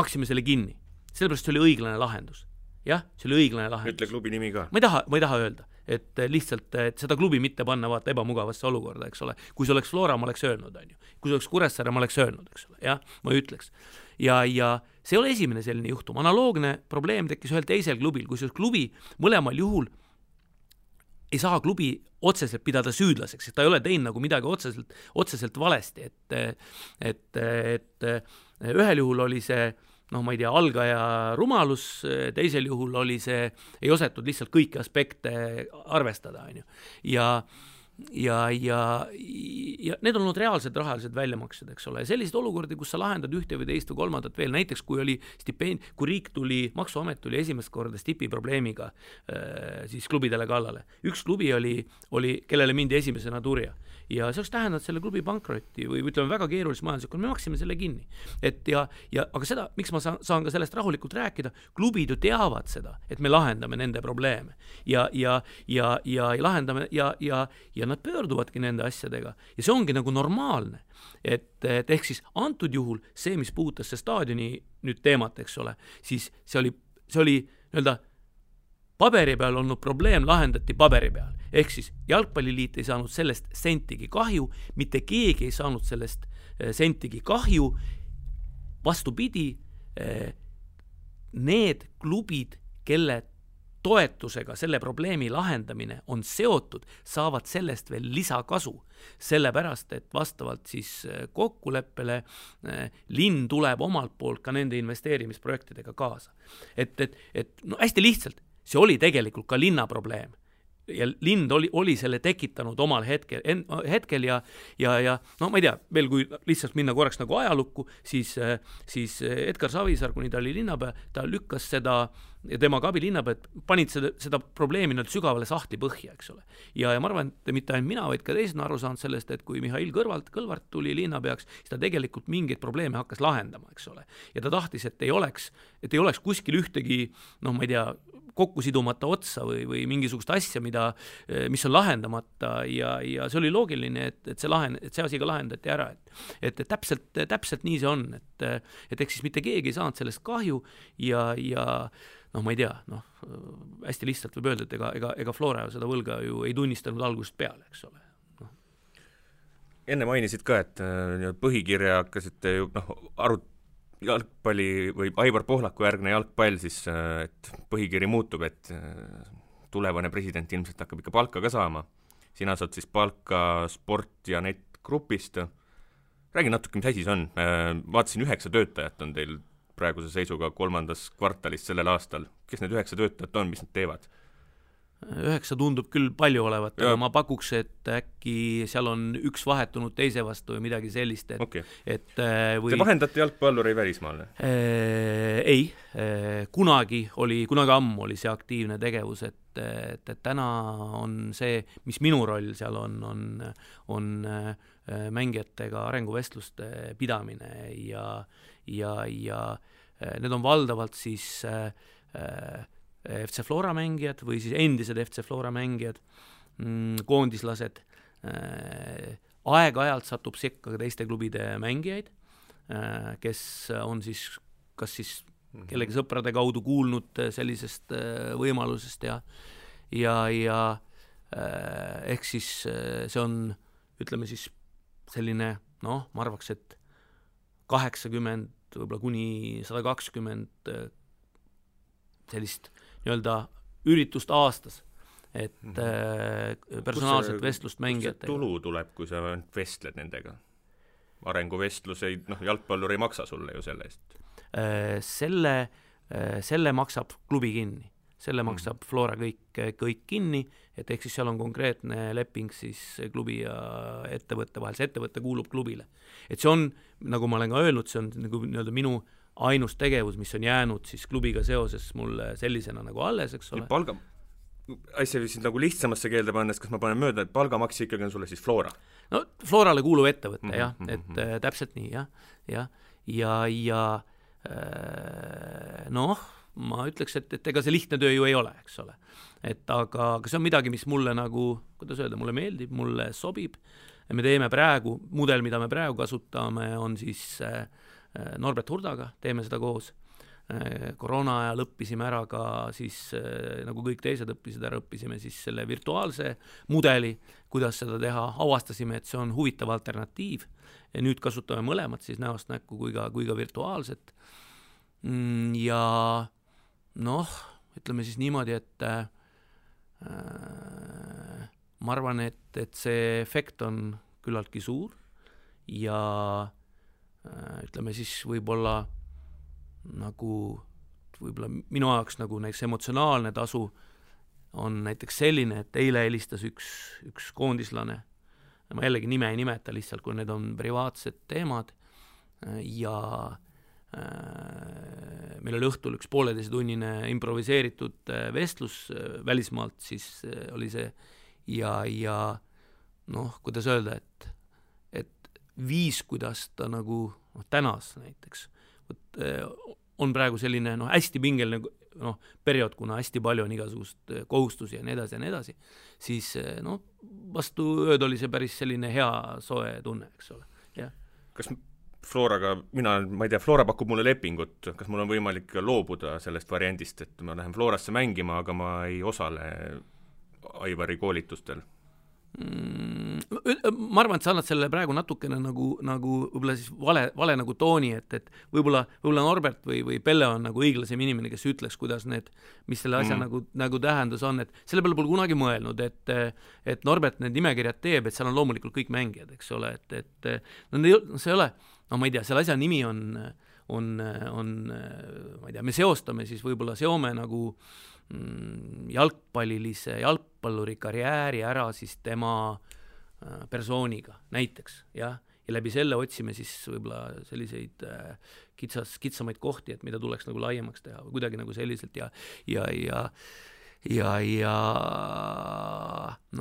Speaker 3: maksime selle kinni, sellepärast see oli õiglane lahendus. Jah, see oli õiglane lahendus.
Speaker 2: Ütle klubi nimi ka.
Speaker 3: Ma ei taha öelda, et lihtsalt et seda klubi mitte panna vaata ebamugavasse olukorda, eks ole. Kui see oleks Flora, ma oleks öelnud, on ju. Kui see oleks Kuressaare, ma oleks öelnud, eks ole. Jah, ma ütleks. Ja see ei ole esimene selline juhtum. Analoogne probleem tekkis ühel teisel klubil, kui see klubi mõlemal juhul ei saa klubi otseselt pidada süüdlaseks, et ta ei ole teinud nagu midagi otseselt valesti. Et ühel juhul oli see ma ei tea, algaja rumalus, teisel juhul oli see, ei osatud lihtsalt kõiki aspekte arvestada, on ju. Ja need on olnud reaalsed rahalised väljamaksed, eks ole. Sellised olukordi, kus sa lahendad ühte või teist või kolmandat veel, näiteks kui riik tuli, maksuamet tuli esimest korda stipi probleemiga siis klubidele kallale. Üks klubi oli, kellele mindi esimesena turja. Ja see oleks tähendanud selle klubi pankrotti või ütleme väga keerulist majanduslikku, me maksime selle kinni. Aga seda, miks ma saan ka sellest rahulikult rääkida, klubid ju teavad seda, et me lahendame nende probleeme ja lahendame ja nad pöörduvadki nende asjadega ja see ongi nagu normaalne. Et ehk siis antud juhul see, mis puudutas see staadioni nüüd teemat, eks ole, siis see oli nii-öelda paberi peal olnud probleem lahendati paberi peal. Ehk siis jalgpalliliit ei saanud sellest sentigi kahju, mitte keegi ei saanud sellest sentigi kahju. Vastupidi, need klubid, kelle toetusega selle probleemi lahendamine on seotud, saavad sellest veel lisakasu. Sellepärast, et vastavalt siis kokkuleppele linn tuleb omalt poolt ka nende investeerimisprojektidega kaasa. Et no hästi lihtsalt, see oli tegelikult ka linna probleem. Ja lind oli selle tekitanud omal hetkel ja no ma ei tea, veel kui lihtsalt minna korraks nagu ajalukku, siis Edgar Savisaar, kuni ta oli linnapea, ta lükkas seda ja tema ka abilinnapea, panid seda probleemi sügavale sahti põhja, eks ole. Ja ma arvan, et mitte ainult mina, vaid ka teised on aru saanud sellest, et kui Mihhail Kõlvart tuli linnapeaks, siis ta tegelikult mingeid probleeme hakkas lahendama, eks ole. Ja ta tahtis, et ei oleks kuskil ühtegi, no ma ei tea, kokku sidumata otsa või mingisugust asja, mis on lahendamata ja see oli loogiline, et see asi ka lahendati ära. Et täpselt nii see on, et eks siis mitte keegi ei saanud sellest kahju ja noh, ma ei tea, hästi lihtsalt võib öelda, et ega Flora seda võlga ju ei tunnistanud algusest peale, eks ole.
Speaker 2: Enne mainisid ka, et põhikirja hakkasite ju jalgpalli või Aivar Pohlaku järgne jalgpall, siis et põhikiri muutub, et tulevane president ilmselt hakkab ikka palka ka saama. Sina saad siis palka Sport ja Net grupist. Räägi natuke, mis asi see on. Vaatasin 9 töötajat on teil praeguse seisuga 3. kvartalis sellel aastal. Kes need 9 töötajat on, mis nad teevad?
Speaker 3: 9 tundub küll palju olevat, aga ma pakuks, et äkki seal on üks vahetunud teise vastu või midagi sellist.
Speaker 2: Okay. Te vahendate jalgpalluri välismaale?
Speaker 3: Ei, kunagi ammu oli see aktiivne tegevus, et täna on see, mis minu roll seal on mängijatega arenguvestluste pidamine ja need on valdavalt siis FC Flora mängijad või siis endised FC Flora mängijad, koondislased. Aeg-ajalt satub sekka ka teiste klubide mängijaid, kes on siis kas siis kellegi sõprade kaudu kuulnud sellisest võimalusest ja ehk siis see on, ütleme siis selline, ma arvaks, et 80 võib-olla kuni 120 sellist nii-öelda üritust aastas, et personaalset vestlust mängijatega.
Speaker 2: Kus see tulu tuleb, kui sa vestled nendega? Arenguvestluse, jalgpallur ei maksa sulle ju selle eest.
Speaker 3: Selle maksab klubi kinni. Selle maksab Flora kõik kinni, et ehk siis seal on konkreetne leping siis klubi ja ettevõtte vahel. See ettevõtte kuulub klubile. Et see on, nagu ma olen ka öelnud, see on nagu nii-öelda minu ainus tegevus, mis on jäänud siis klubiga seoses mulle sellisena nagu alles, eks ole.
Speaker 2: Asja siis nagu lihtsamasse keelde pannes, kas ma panen mööda, et palgamakse ikkagi on sulle siis Flora?
Speaker 3: No Florale kuuluv ettevõte, jah, et täpselt nii, jah. Ja ma ütleks, et ega see lihtne töö ju ei ole, eks ole. Aga see on midagi, mis mulle nagu, kuidas öelda, mulle meeldib, mulle sobib. Me teeme praegu, mudel, mida me praegu kasutame, on siis Norbert Hurdaga, teeme seda koos. Koroona ajal õppisime ära ka siis, nagu kõik teised õppisime siis selle virtuaalse mudeli, kuidas seda teha. Avastasime, et see on huvitav alternatiiv ja nüüd kasutame mõlemat siis näost näkku kui ka virtuaalset. Ja ütleme siis niimoodi, et ma arvan, et see efekt on küllaltki suur ja ütleme siis võib-olla minu ajaks nagu näiteks emotsionaalne tasu on näiteks selline, et eile helistas üks koondislane, ma jällegi nime ei nimeta lihtsalt, kui need on privaatsed teemad ja meil oli õhtul üks 1,5-tunnine improviseeritud vestlus välismaalt, siis oli see ja kuidas öelda, et viis, kuidas ta nagu tänas näiteks, on praegu selline hästi pingeline periood, kuna hästi palju on igasugust kohustusi ja nii edasi, siis vastu ööd oli see päris selline hea soe tunne, eks ole. Ja.
Speaker 2: Kas Floraga, ma ei tea, Flora pakub mulle lepingut, kas mul on võimalik loobuda sellest variandist, et ma lähen Florasse mängima, aga ma ei osale Aivari koolitustel?
Speaker 3: Ma arvan, et sa annad selle praegu natukene nagu võib-olla siis vale nagu tooni, et võib-olla Norbert või Pelle on nagu õiglasem inimene, kes ütleks, kuidas mis selle asja nagu tähendus on, et selle peale pole kunagi mõelnud, et Norbert need nimekirjad teeb, et seal on loomulikult kõik mängijad, eks ole, et see ei ole, ma ei tea, selle asja nimi on, ma ei tea, me seome nagu jalgpalluri karjääri ära siis tema persooniga näiteks, jah, ja läbi selle otsime siis võib-olla selliseid kitsamaid kohti, et mida tuleks nagu laiemaks teha või kuidagi nagu selliselt ja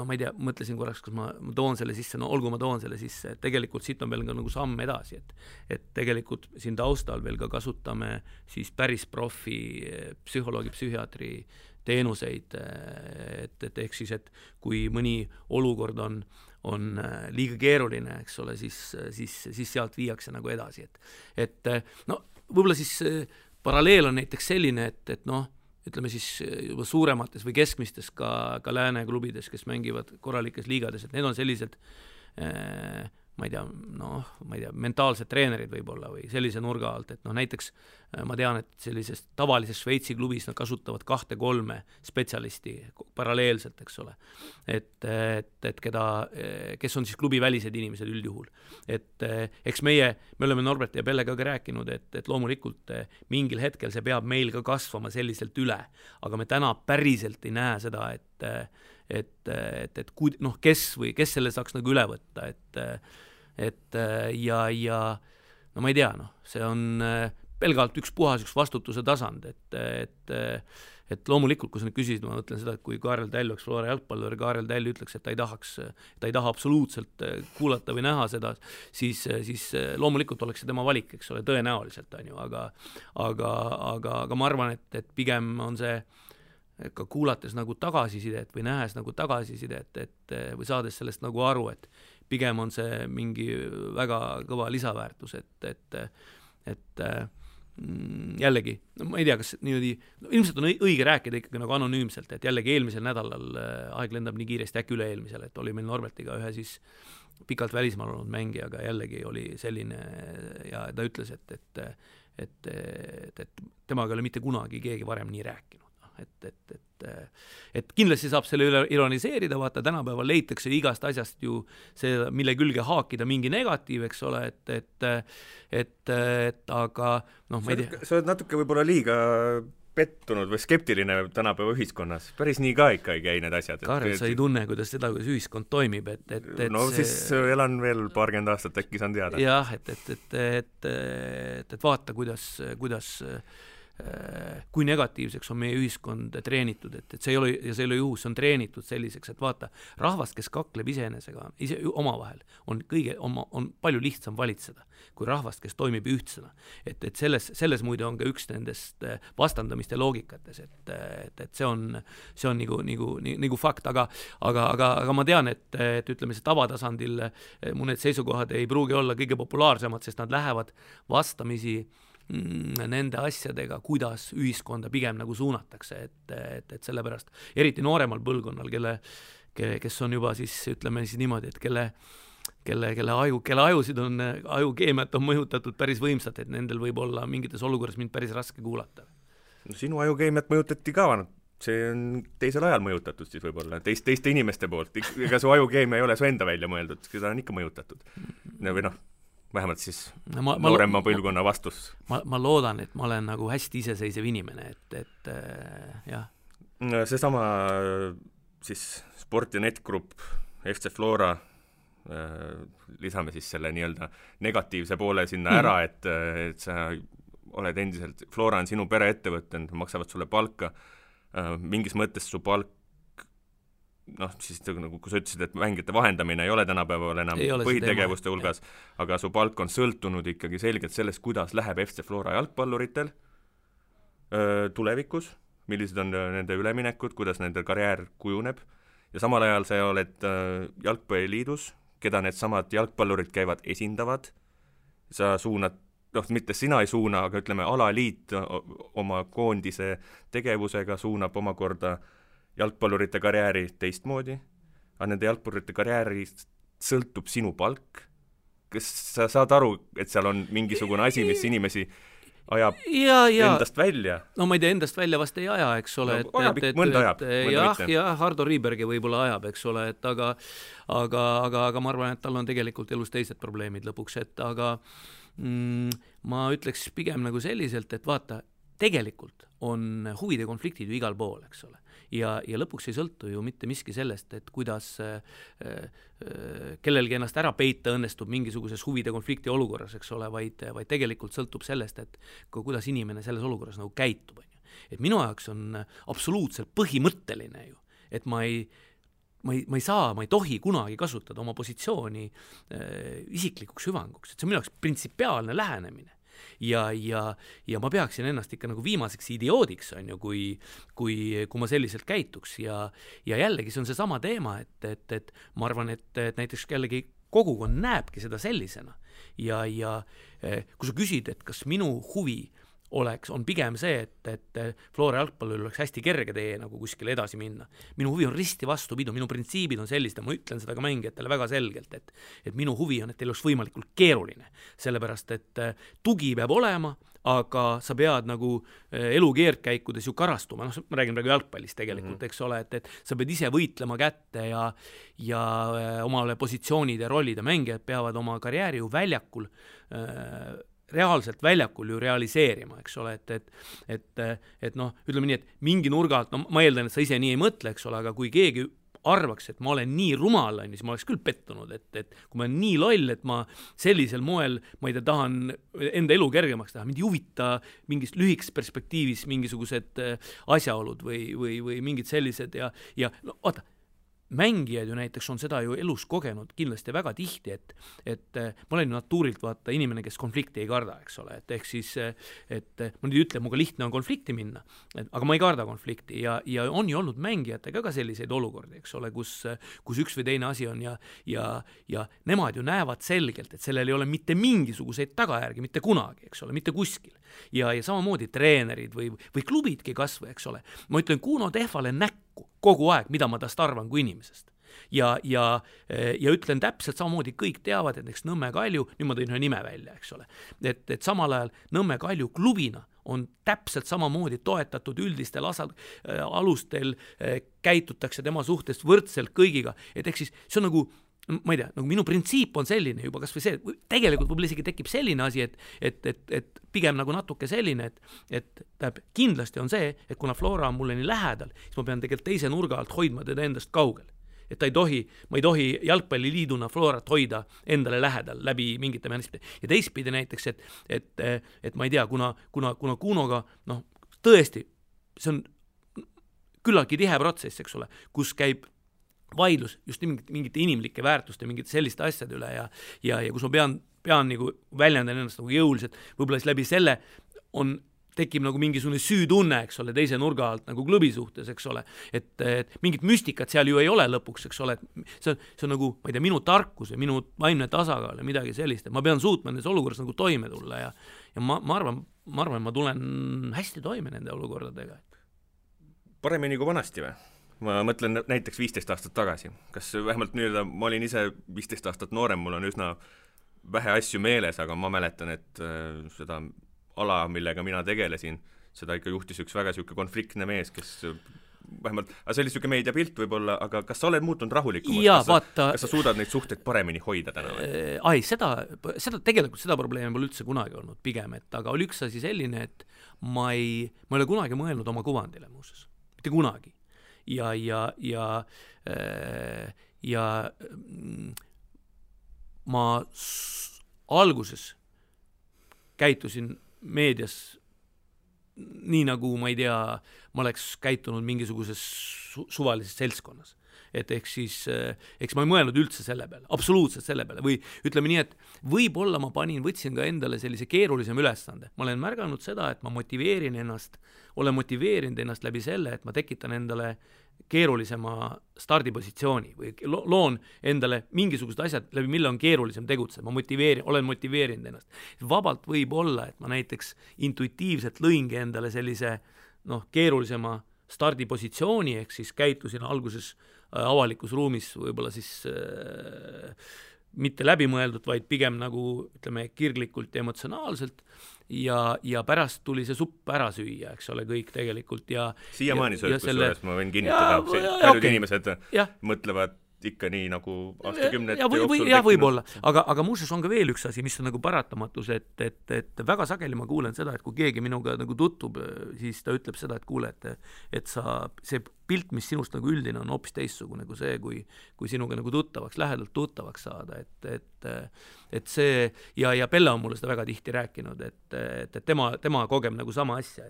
Speaker 3: ma ei tea, mõtlesin korraks, kas ma toon selle sisse, olgu ma toon selle sisse, et tegelikult siit on veel ka nagu samm edasi, et tegelikult siin taustal veel ka kasutame siis päris profi psühholoogi, psühhiaatri teenuseid, et ehk siis, et kui mõni olukord on liiga keeruline, eks ole, siis sealt viiakse nagu edasi, et võib-olla siis paralleel on näiteks selline, et ütleme siis juba suuremates või keskmistes ka lääne klubides, kes mängivad korralikes liigades, et need on sellised ma ei tea, mentaalsed treenerid võib-olla või sellise nurga alt, et näiteks ma tean, et sellises tavalises Šveitsi klubis nad kasutavad 2-3 spetsialisti paralleelselt, eks ole, et kes on siis klubi välised inimesed üldjuhul. Et eks me oleme Norbert ja Pellega ka rääkinud, et loomulikult mingil hetkel see peab meil ka kasvama selliselt üle, aga me täna päriselt ei näe seda, kes selle saaks nagu üle võtta, ja ma ei tea, see on pelgalt üks vastutuse tasand, et loomulikult, kui sa nüüd küsisid, ma mõtlen seda, et kui Kaarel Täll oleks Flora jalgpallur, Kaarel Täll ütleks, et ta ei taha absoluutselt kuulata või näha seda, siis loomulikult oleks see tema valik, eks ole, tõenäoliselt on ju, aga ma arvan, et pigem on see ka kuulates nagu tagasisidet või nähes nagu tagasisidet, või saades sellest nagu aru, et pigem on see mingi väga kõva lisaväärtus, et jällegi, ma ei tea, kas niimoodi, ilmselt on õige rääkida ikkagi nagu anonüümselt, et jällegi eelmisel nädalal aeg lendab nii kiiresti, äkki üle-eelmisel, et oli meil Norbertiga ühe siis pikalt välismaal olnud mängijaga, jällegi oli selline ja ta ütles, et temaga ei ole mitte kunagi keegi varem nii rääkinud. Et kindlasti saab selle üle ironiseerida, vaata tänapäeval leitakse igast asjast ju see, mille külge haakida mingi negatiiv, eks ole, aga ma ei tea.
Speaker 2: Sa oled natuke võib-olla liiga pettunud või skeptiline tänapäeva ühiskonnas. Päris nii ka ikka ei käi need asjad.
Speaker 3: Kaarel, sa ei tunne, kuidas ühiskond toimib,
Speaker 2: siis elan veel paarkümmend aastat, äkki saan teada.
Speaker 3: Jah, et vaata, kuidas kui negatiivseks on meie ühiskond treenitud, et see ei ole juhus, see on treenitud selliseks, et vaata, rahvast, kes kakleb iseenesega, ise omavahel, on palju lihtsam valitseda, kui rahvast, kes toimib ühtsena. Et selles muide on ka üks nendest vastandamiste loogikates, et see on nagu fakt, aga ma tean, et ütleme, see tavatasandil mu need seisukohad ei pruugi olla kõige populaarsemad, sest nad lähevad vastamisi nende asjadega, kuidas ühiskonda pigem nagu suunatakse, et sellepärast eriti nooremal põlvkonnal, kes on juba siis, ütleme siis niimoodi, et kelle ajusid on, ajukeemiat on mõjutatud päris võimsalt, et nendel võib olla mingites olukorras mind päris raske kuulata.
Speaker 2: No sinu ajukeemiat mõjutati ka, see on teisel ajal mõjutatud siis võib-olla, teiste inimeste poolt, ega su ajukeemia ei ole su enda välja mõeldud, seda on ikka mõjutatud. Või vähemalt siis noorema põlvkonna vastus.
Speaker 3: Ma loodan, et ma olen nagu hästi iseseisev inimene, et jah.
Speaker 2: Seesama siis Sport ja Netgrupp, FC Flora, lisame siis selle nii-öelda negatiivse poole sinna ära, et sa oled endiselt, Flora on sinu pereettevõte, maksavad sulle palka, mingis mõttes su palk siis nagu kui sa ütlesid, et mängijate vahendamine ei ole tänapäeval enam põhitegevuste hulgas, aga su palk on sõltunud ikkagi selgelt sellest, kuidas läheb FC Flora jalgpalluritel tulevikus, millised on nende üleminekud, kuidas nende karjäär kujuneb ja samal ajal sa oled jalgpalliliidus, keda need samad jalgpallurid käivad esindavad, sa suunad, mitte sina ei suuna, aga ütleme, alaliit oma koondise tegevusega suunab omakorda jalgpallurite karjääri teistmoodi, aga nende jalgpallurite karjäärist sõltub sinu palk. Kas sa saad aru, et seal on mingisugune asi, mis inimesi ajab endast välja?
Speaker 3: No ma ei tea, endast välja vast ei aja, eks ole.
Speaker 2: Mõnda ajab.
Speaker 3: Jah, Hardo Riibergi võib-olla ajab, eks ole, aga ma arvan, et tal on tegelikult elus teised probleemid lõpuks, aga ma ütleks pigem nagu selliselt, et vaata, tegelikult on huvide konfliktid ju igal pool, eks ole. Ja lõpuks ei sõltu ju mitte miski sellest, et kuidas kellelgi ennast ära peita õnnestub mingisuguses huvide konflikti olukorras, eks ole, vaid tegelikult sõltub sellest, et kuidas inimene selles olukorras nagu käitub. Et minu jaoks on absoluutselt põhimõtteline ju, et ma ei tohi kunagi kasutada oma positsiooni isiklikuks hüvanguks, et see on minu jaoks printsipiaalne lähenemine. Ja ma peaksin ennast ikka nagu viimaseks idioodiks, on ju, kui ma selliselt käituks ja jällegi see on see sama teema, et ma arvan, et näiteks jällegi kogukond näebki seda sellisena ja kui sa küsid, et kas minu huvi on pigem see, et Flora jalgpallil oleks hästi kerge tee nagu kuskile edasi minna. Minu huvi on risti vastupidu, minu printsiibid on sellised ja ma ütlen seda ka mängijatele väga selgelt, et minu huvi on, et teil oleks võimalikult keeruline, sellepärast et tugi peab olema, aga sa pead nagu elu keerdkäikudes ju karastuma, ma räägin praegu jalgpallist tegelikult, eks ole, et sa pead ise võitlema kätte ja omale positsioonid ja rollid ja mängijad peavad oma karjääri ju väljakul reaalselt väljakul ju realiseerima, eks ole, et noh, ütleme nii, et mingi nurga alt, ma eeldan, et sa ise nii ei mõtle, eks ole, aga kui keegi arvaks, et ma olen nii rumal, siis ma oleks küll pettunud, et kui ma olen nii loll, et ma sellisel moel, ma ei tea, tahan enda elu kergemaks teha, mind ei huvita mingis lühikes perspektiivis mingisugused asjaolud või mingid sellised ja no vaata, mängijad ju näiteks on seda ju elus kogenud kindlasti väga tihti, et ma olen ju natuurilt vaata inimene, kes konflikti ei karda, eks ole, et ehk siis, et ma nüüd ütlen, muga lihtne on konflikti minna, aga ma ei karda konflikti ja on ju olnud mängijatega ka selliseid olukordi, eks ole, kus üks või teine asi on ja nemad ju näevad selgelt, et sellel ei ole mitte mingisuguseid tagajärgi, mitte kunagi, eks ole, mitte kuskil. Ja samamoodi treenerid või klubidki kasvõi, eks ole. Ma ütlen Kuno Tehvale näkku kogu aeg, mida ma tast arvan kui inimesest. Ja ütlen täpselt samamoodi, kõik teavad, et näiteks Nõmme Kalju, nüüd ma tõin ühe nime välja, eks ole, et samal ajal Nõmme Kalju klubina on täpselt samamoodi toetatud üldistel alustel, käitutakse tema suhtest võrdselt kõigiga, et ehk siis see on nagu ma ei tea, nagu minu printsiip on selline juba, kas või see, tegelikult võib-olla isegi tekib selline asi, et pigem nagu natuke selline, et kindlasti on see, et kuna Flora on mulle nii lähedal, siis ma pean tegelikult teise nurga alt hoidma teda endast kaugel. Et ma ei tohi jalgpalliliiduna Florat hoida endale lähedal läbi mingite mehhanismide. Ja teistpidi näiteks, et ma ei tea, kuna Kunoga, noh, tõesti, see on küllaltki tihe protsess, eks ole, kus käib vaidlus just mingite inimlike väärtuste, mingite selliste asjade üle ja kus ma pean nagu väljendan ennast nagu jõuliselt, võib-olla siis läbi selle tekib nagu mingisugune süütunne, eks ole, teise nurga alt nagu klubi suhtes, eks ole, et mingit müstikat seal ju ei ole lõpuks, eks ole, et see on nagu, ma ei tea, minu tarkus ja minu vaimne tasakaal ja midagi sellist, et ma pean suutma nendes olukorras nagu toime tulla ja ma arvan, ma tulen hästi toime nende olukordadega.
Speaker 2: Paremini kui vanasti või? Ma mõtlen näiteks 15 aastat tagasi. Kas vähemalt nüüd, ma olin ise 15 aastat noorem, mul on üsna vähe asju meeles, aga ma mäletan, et seda ala, millega mina tegelesin, seda ikka juhtis üks väga siuke konfliktne mees, kes vähemalt, see oli siuke meediapilt võib-olla, aga kas sa oled muutunud rahulikumaks? Kas sa suudad neid suhteid paremini hoida täna? Tegelikult seda probleemi pole üldse kunagi olnud pigem, aga oli üks asi selline, et ma ei ole kunagi mõelnud oma kuvandile muuses. Mitte kunagi. Ja ma alguses käitusin meedias nii nagu, ma ei tea, ma oleks käitunud mingisuguses suvalises seltskonnas.
Speaker 3: et eks ma ei mõelnud üldse selle peale, absoluutselt selle peale, või ütleme nii, et võib-olla ma võtsin ka endale sellise keerulisem ülesande. Ma olen märganud seda, et ma olen motiveerinud ennast läbi selle, et ma tekitan endale keerulisema stardipositsiooni või loon endale mingisugused asjad, läbi mille on keerulisem tegutseda, olen motiveerinud ennast. Vabalt võib olla, et ma näiteks intuitiivselt lõingi endale sellise keerulisema stardipositsiooni, ehk siis käitusin alguses avalikus ruumis võib-olla siis mitte läbimõeldud, vaid pigem nagu ütleme kirglikult ja emotsionaalselt ja pärast tuli see supp ära süüa, eks ole, kõik tegelikult ja
Speaker 2: siiamaani kusjuures ma võin kinnitada, paljud inimesed mõtlevad ikka nii nagu aastakümnete jooksul
Speaker 3: võib-olla, aga muuseas on ka veel üks asi, mis on nagu paratamatus, et väga sageli ma kuulen seda, et kui keegi minuga nagu tuttub, siis ta ütleb seda, et kuule, et see pilt, mis sinust nagu üldine on hoopis teistsugune kui see, kui sinuga nagu lähedalt tuttavaks saada, et see ja Pelle on mulle seda väga tihti rääkinud, et tema kogeb nagu sama asja,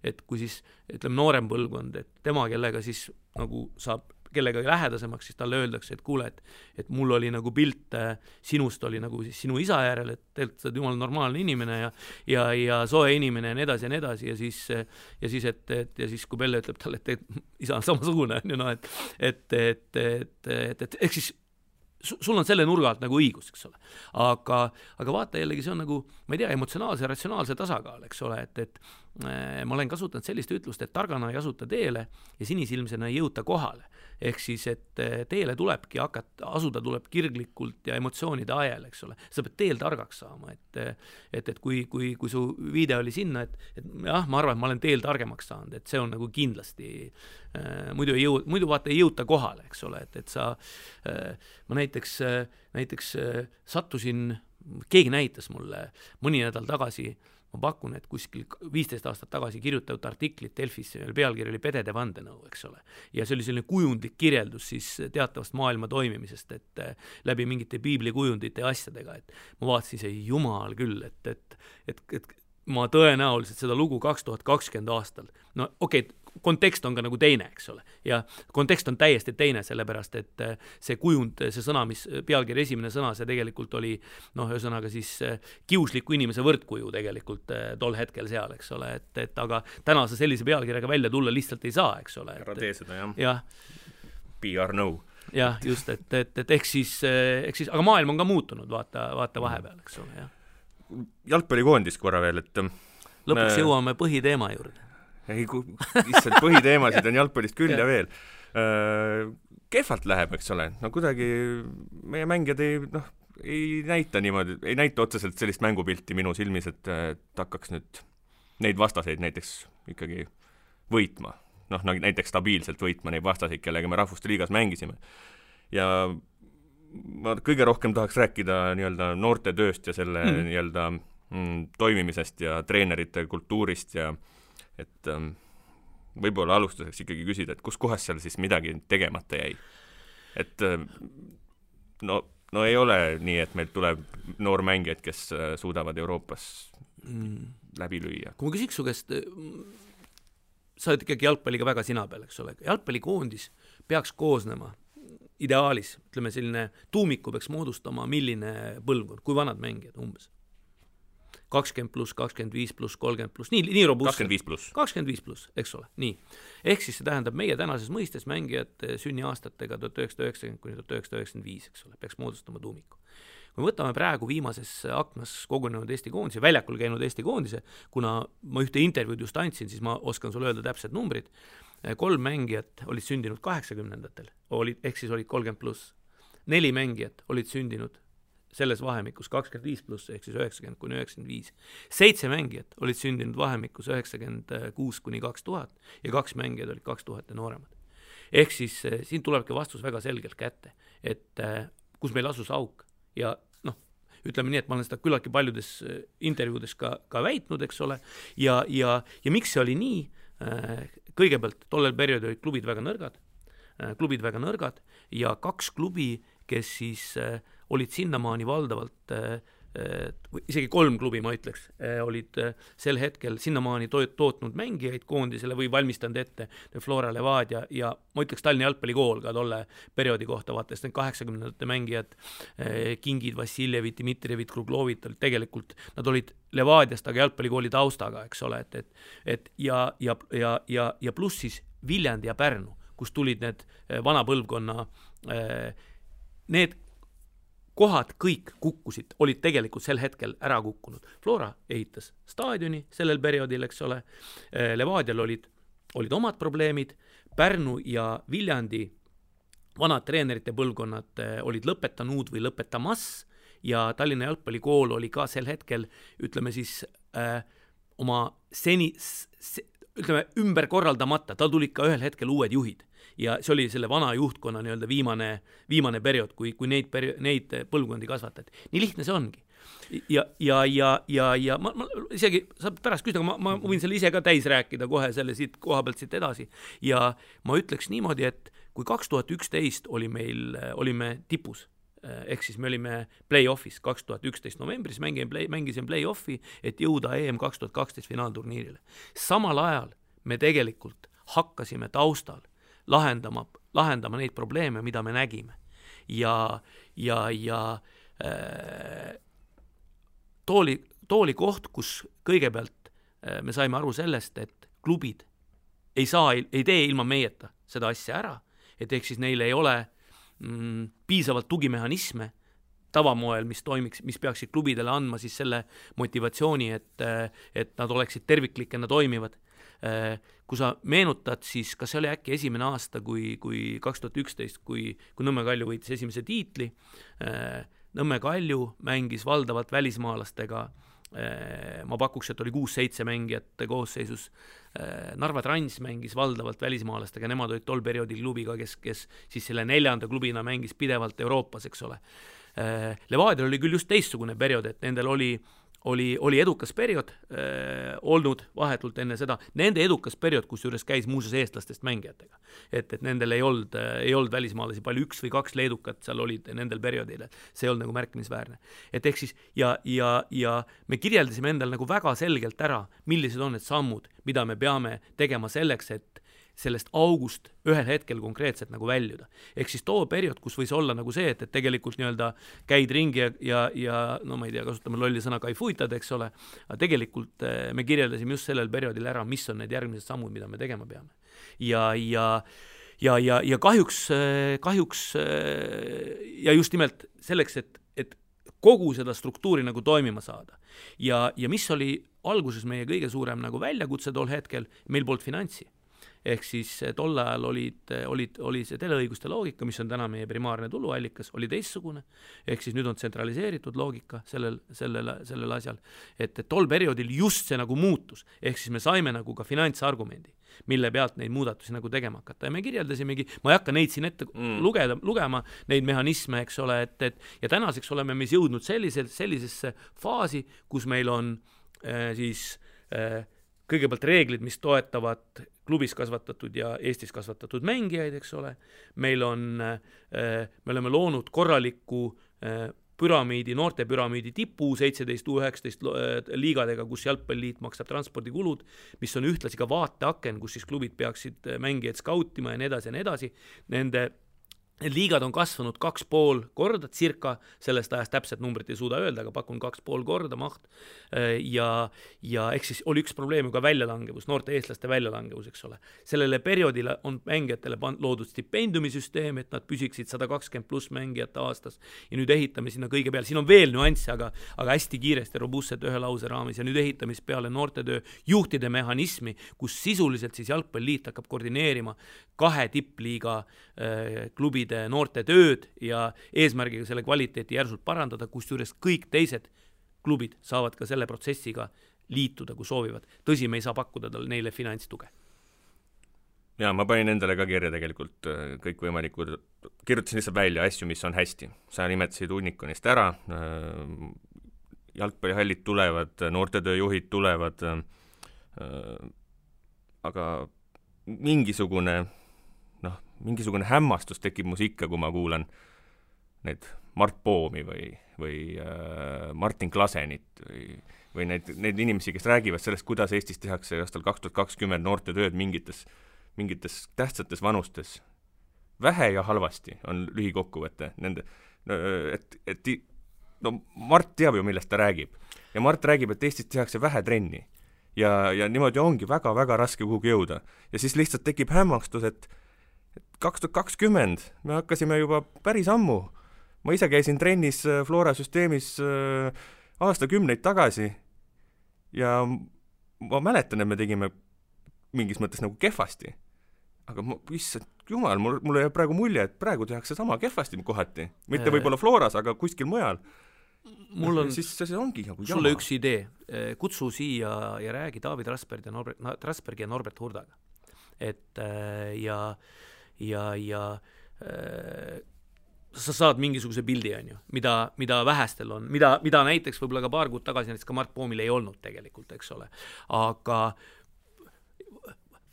Speaker 3: et kui siis ütleme noorem põlvkond, et tema, kellega siis nagu saab kellega lähedasemaks, siis talle öeldakse, et kuule, et mul oli nagu pilt sinust oli nagu siis sinu isa järel, et tegelikult sa oled jumal normaalne inimene ja soe inimene ja nii edasi ja siis kui Pelle ütleb talle, et isa on samasugune, et eks siis sul on selle nurga alt nagu õigus, eks ole. Aga vaata jällegi, see on nagu, ma ei tea, emotsionaalse ja ratsionaalse tasakaal, eks ole, et ma olen kasutanud sellist ütlust, et targana ei asuta teele ja sinisilmsena ei jõuta kohale. Ehk siis, et teele tulebki asuda tuleb kirglikult ja emotsioonide ajal, eks ole. Sa pead teel targaks saama, et kui su viide oli sinna, et jah, ma arvan, et ma olen teel targemaks saanud, et see on nagu kindlasti muidu vaata ei jõuta kohale, eks ole, et sa ma näiteks sattusin, keegi näitas mulle mõni nädal tagasi, ma pakun, et kuskil 15 aastat tagasi kirjutatud artiklit Delfisse, pealkiri oli Pedede vandenõu, eks ole. Ja see oli selline kujundlik kirjeldus siis teatavast maailma toimimisest, et läbi mingite piiblikujundite ja asjadega, et ma vaatasin see jumal küll, et ma tõenäoliselt seda lugu 2020 aastal, no okei, kontekst on ka nagu teine, eks ole, ja kontekst on täiesti teine, sellepärast, et see kujund, see sõna, mis pealkiri esimene sõna, see tegelikult oli, ühesõnaga siis kiusliku inimese võrdkuju tegelikult tol hetkel seal, eks ole, et aga täna sa sellise pealkirjaga välja tulla lihtsalt ei saa, eks ole.
Speaker 2: Ära tee seda,
Speaker 3: jah.
Speaker 2: PR no.
Speaker 3: Jah, just, et ehk siis, aga maailm on ka muutunud, vaata vahepeal, eks ole, jah.
Speaker 2: Jalgpallikoondis korra veel, et
Speaker 3: lõpuks jõuame põhiteema juurde.
Speaker 2: Lihtsalt põhiteemasid on jalgpallist küll ja veel. Kehvalt läheb, eks ole. No kuidagi meie mängijad ei näita niimoodi, ei näita otseselt sellist mängupilti minu silmis, et hakkaks nüüd neid vastaseid näiteks ikkagi võitma. Näiteks stabiilselt võitma neid vastaseid, kellega me Rahvuste Liigas mängisime. Ja ma kõige rohkem tahaks rääkida nii-öelda noorte tööst ja selle nii-öelda toimimisest ja treenerite kultuurist ja et võib-olla alustuseks ikkagi küsida, et kus kohas seal siis midagi tegemata jäi. Et no ei ole nii, et meil tuleb noormängijad, kes suudavad Euroopas läbi lüüa.
Speaker 3: Kui ma küsiks su käest, sa oled ikkagi jalgpalliga väga sina peal, eks ole. Jalgpallikoondis peaks koosnema ideaalis, ütleme selline tuumiku peaks moodustama milline põlvkond, kui vanad mängijad umbes? 20+, 25+, 30+, nii robust. 25+, eks ole, nii. Ehk siis see tähendab meie tänases mõistes mängijad sünniaastatega 1990 kuni 1995, eks ole, peaks moodustama tuumiku. Kui võtame praegu viimases aknas kogunenud Eesti koondise, väljakul käinud Eesti koondise, kuna ma ühte intervjuud just andsin, siis ma oskan sulle öelda täpsed numbrid. 3 mängijat olid sündinud 80-ndatel, ehk siis olid 30+. 4 mängijat olid sündinud selles vahemikus 25+, ehk siis 90 kuni 95. 7 mängijat olid sündinud vahemikus 96 kuni 2000 ja 2 mängijad olid 2000 ja nooremad. Ehk siis siin tulebki vastus väga selgelt kätte, et kus meil asus auk ja ütleme nii, et ma olen seda küllaltki paljudes intervjuudes ka väitnud, eks ole, ja miks see oli nii? Kõigepealt tollel perioodil olid klubid väga nõrgad ja 2 klubi, kes siis olid sinnamaani valdavalt isegi 3 klubi, ma ütleks, olid sel hetkel sinnamaani tootnud mängijaid koondisele või valmistanud ette Flora Levadia ja ma ütleks Tallinna jalgpallikool ka tolle perioodi kohta, vaates need 80ndate mängijad, Kingid, Vassiljevid, Dmitrijevid, Kruglovid, tegelikult nad olid Levadiast, aga jalgpallikooli taustaga, eks ole, ja pluss siis Viljandi ja Pärnu, kus tulid need vana põlvkonna, need kohad kõik kukkusid, olid tegelikult sel hetkel ära kukkunud. Flora ehitas staadioni sellel perioodil, eks ole, Levadial olid omad probleemid, Pärnu ja Viljandi vanad treenerite põlvkonnad olid lõpetanud või lõpetamas ja Tallinna jalgpallikool oli ka sel hetkel, ütleme siis, oma ümber korraldamata, tal tulid ka ühel hetkel uued juhid ja see oli selle vana juhtkonna nii-öelda viimane periood, kui neid põlvkondi kasvatati. Nii lihtne see ongi. Ja ma isegi saab pärast küsida, aga ma võin selle ise ka täis rääkida kohe selle siit koha pealt siit edasi ja ma ütleks niimoodi, et kui 2011 olime tipus, ehk siis me olime play-offis 2011 novembris, mängisin play-offi, et jõuda EM 2012 finaalturniirile. Samal ajal me tegelikult hakkasime taustal lahendama neid probleeme, mida me nägime. Ja tooli koht, kus kõigepealt me saime aru sellest, et klubid ei tee ilma meieta seda asja ära, et ehk siis neil ei ole piisavalt tugimehhanisme tavamoel, mis peaksid klubidele andma siis selle motivatsiooni, et nad oleksid terviklikena toimivad. Kui sa meenutad, siis kas see oli äkki esimene aasta, kui 2011, kui Nõmme Kalju võitis esimese tiitli, Nõmme Kalju mängis valdavalt välismaalastega, ma pakuks, et oli 6-7 mängijate koosseisus, Narva Trans mängis valdavalt välismaalastega, nemad olid tol perioodil klubiga, kes siis selle 4. klubina mängis pidevalt Euroopas, eks ole. Levadial oli küll just teistsugune periood, et nendel oli edukas periood olnud vahetult enne seda, nende edukas periood, kus juures käis muuseas eestlastest mängijatega. Et nendel ei olnud välismaalasi palju, 1 või 2 leedukat seal olid nendel perioodil, see ei olnud nagu märkimisväärne. Et ehk siis, ja me kirjeldasime endal nagu väga selgelt ära, millised on need sammud, mida me peame tegema selleks, et sellest august ühel hetkel konkreetselt nagu väljuda. Ehk siis too periood, kus võis olla nagu see, et tegelikult nii-öelda käid ringi ja no ma ei tea, kasutame lolli sõna kaifuitad, eks ole, aga tegelikult me kirjeldasime just sellel perioodil ära, mis on need järgmised sammud, mida me tegema peame. Ja kahjuks ja just nimelt selleks, et kogu seda struktuuri nagu toimima saada. Ja mis oli alguses meie kõige suurem nagu väljakutse tol hetkel, meil polnud finantsi. Ehk siis tol ajal oli see teleõiguste loogika, mis on täna meie primaarne tuluallikas, oli teistsugune. Ehk siis nüüd on tsentraliseeritud loogika sellel asjal. Et tol perioodil just see nagu muutus. Ehk siis me saime nagu ka finantsargumendi, mille pealt neid muudatusi nagu tegema hakata. Ja me kirjeldasimegi, ma ei hakka neid siin ette lugema, neid mehhanisme, eks ole, ja tänaseks oleme me jõudnud sellisesse faasi, kus meil on siis kõigepealt reeglid, mis toetavad klubis kasvatatud ja Eestis kasvatatud mängijaid, eks ole. Me oleme loonud korraliku noorte püramiidi tipu 17-19 liigadega, kus jalgpalliliit maksab transpordikulud, mis on ühtlasi ka vaateaken, kus siis klubid peaksid mängijaid skautima ja nii edasi. Need liigad on kasvanud 2,5 korda circa, sellest ajast täpselt numbrit ei suuda öelda, aga pakun 2,5 korda maht. Ja eks siis oli üks probleem ka väljalangevus, noorte eestlaste väljalangevus, eks ole. Sellele perioodile on mängijatele loodud stipendiumisüsteem, et nad püsiksid 120 pluss mängijate aastas. Ja nüüd ehitame sinna kõige peale. Siin on veel nüansse, aga hästi kiiresti robustselt ühe lause raamis. Ja nüüd ehitamis peale noortetöö juhtide mehhanismi, kus sisuliselt siis jalgpalliliit hakkab koordineerima 2 tippliiga klubi noorte tööd ja eesmärgiga selle kvaliteeti järsult parandada, kus juures kõik teised klubid saavad ka selle protsessiga liituda, kui soovivad. Tõsi, me ei saa pakkuda neile finantstuge.
Speaker 2: Ja ma panin endale ka kirja tegelikult kõikvõimalikud, kirjutasin lihtsalt välja asju, mis on hästi. Sa nimetasid Unikonist ära, jalgpallihallid tulevad, noortetööjuhid tulevad, aga mingisugune hämmastus tekib mus ikka, kui ma kuulan need Mart Poomi või või Martin Klasenit või neid inimesi, kes räägivad sellest, kuidas Eestis tehakse aastal 2020 noorte tööd mingites tähtsates vanustes. Vähe ja halvasti on lühikokkuvõte nende, Mart teab ju, millest ta räägib. Ja Mart räägib, et Eestis tehakse vähe trenni. Ja niimoodi ongi väga-väga raske kuhugi jõuda. Ja siis lihtsalt tekib hämmastus, et 2020 me hakkasime juba päris ammu. Ma ise käisin trennis Flora süsteemis aastakümneid tagasi ja ma mäletan, et me tegime mingis mõttes nagu kehvasti. Aga issand jumal, mulle jääb praegu mulje, et praegu tehakse sama kehvasti kohati. Mitte võib-olla Floras, aga kuskil mujal.
Speaker 3: Mul on
Speaker 2: siis see ongi nagu
Speaker 3: sulle üks idee. Kutsu siia ja räägi David Rasbergi ja Norbert Hurdaga. Et sa saad mingisuguse pildi, on ju, mida vähestel on, mida näiteks võib-olla ka paar kuud tagasi näiteks ka Mart Poomil ei olnud tegelikult, eks ole. Aga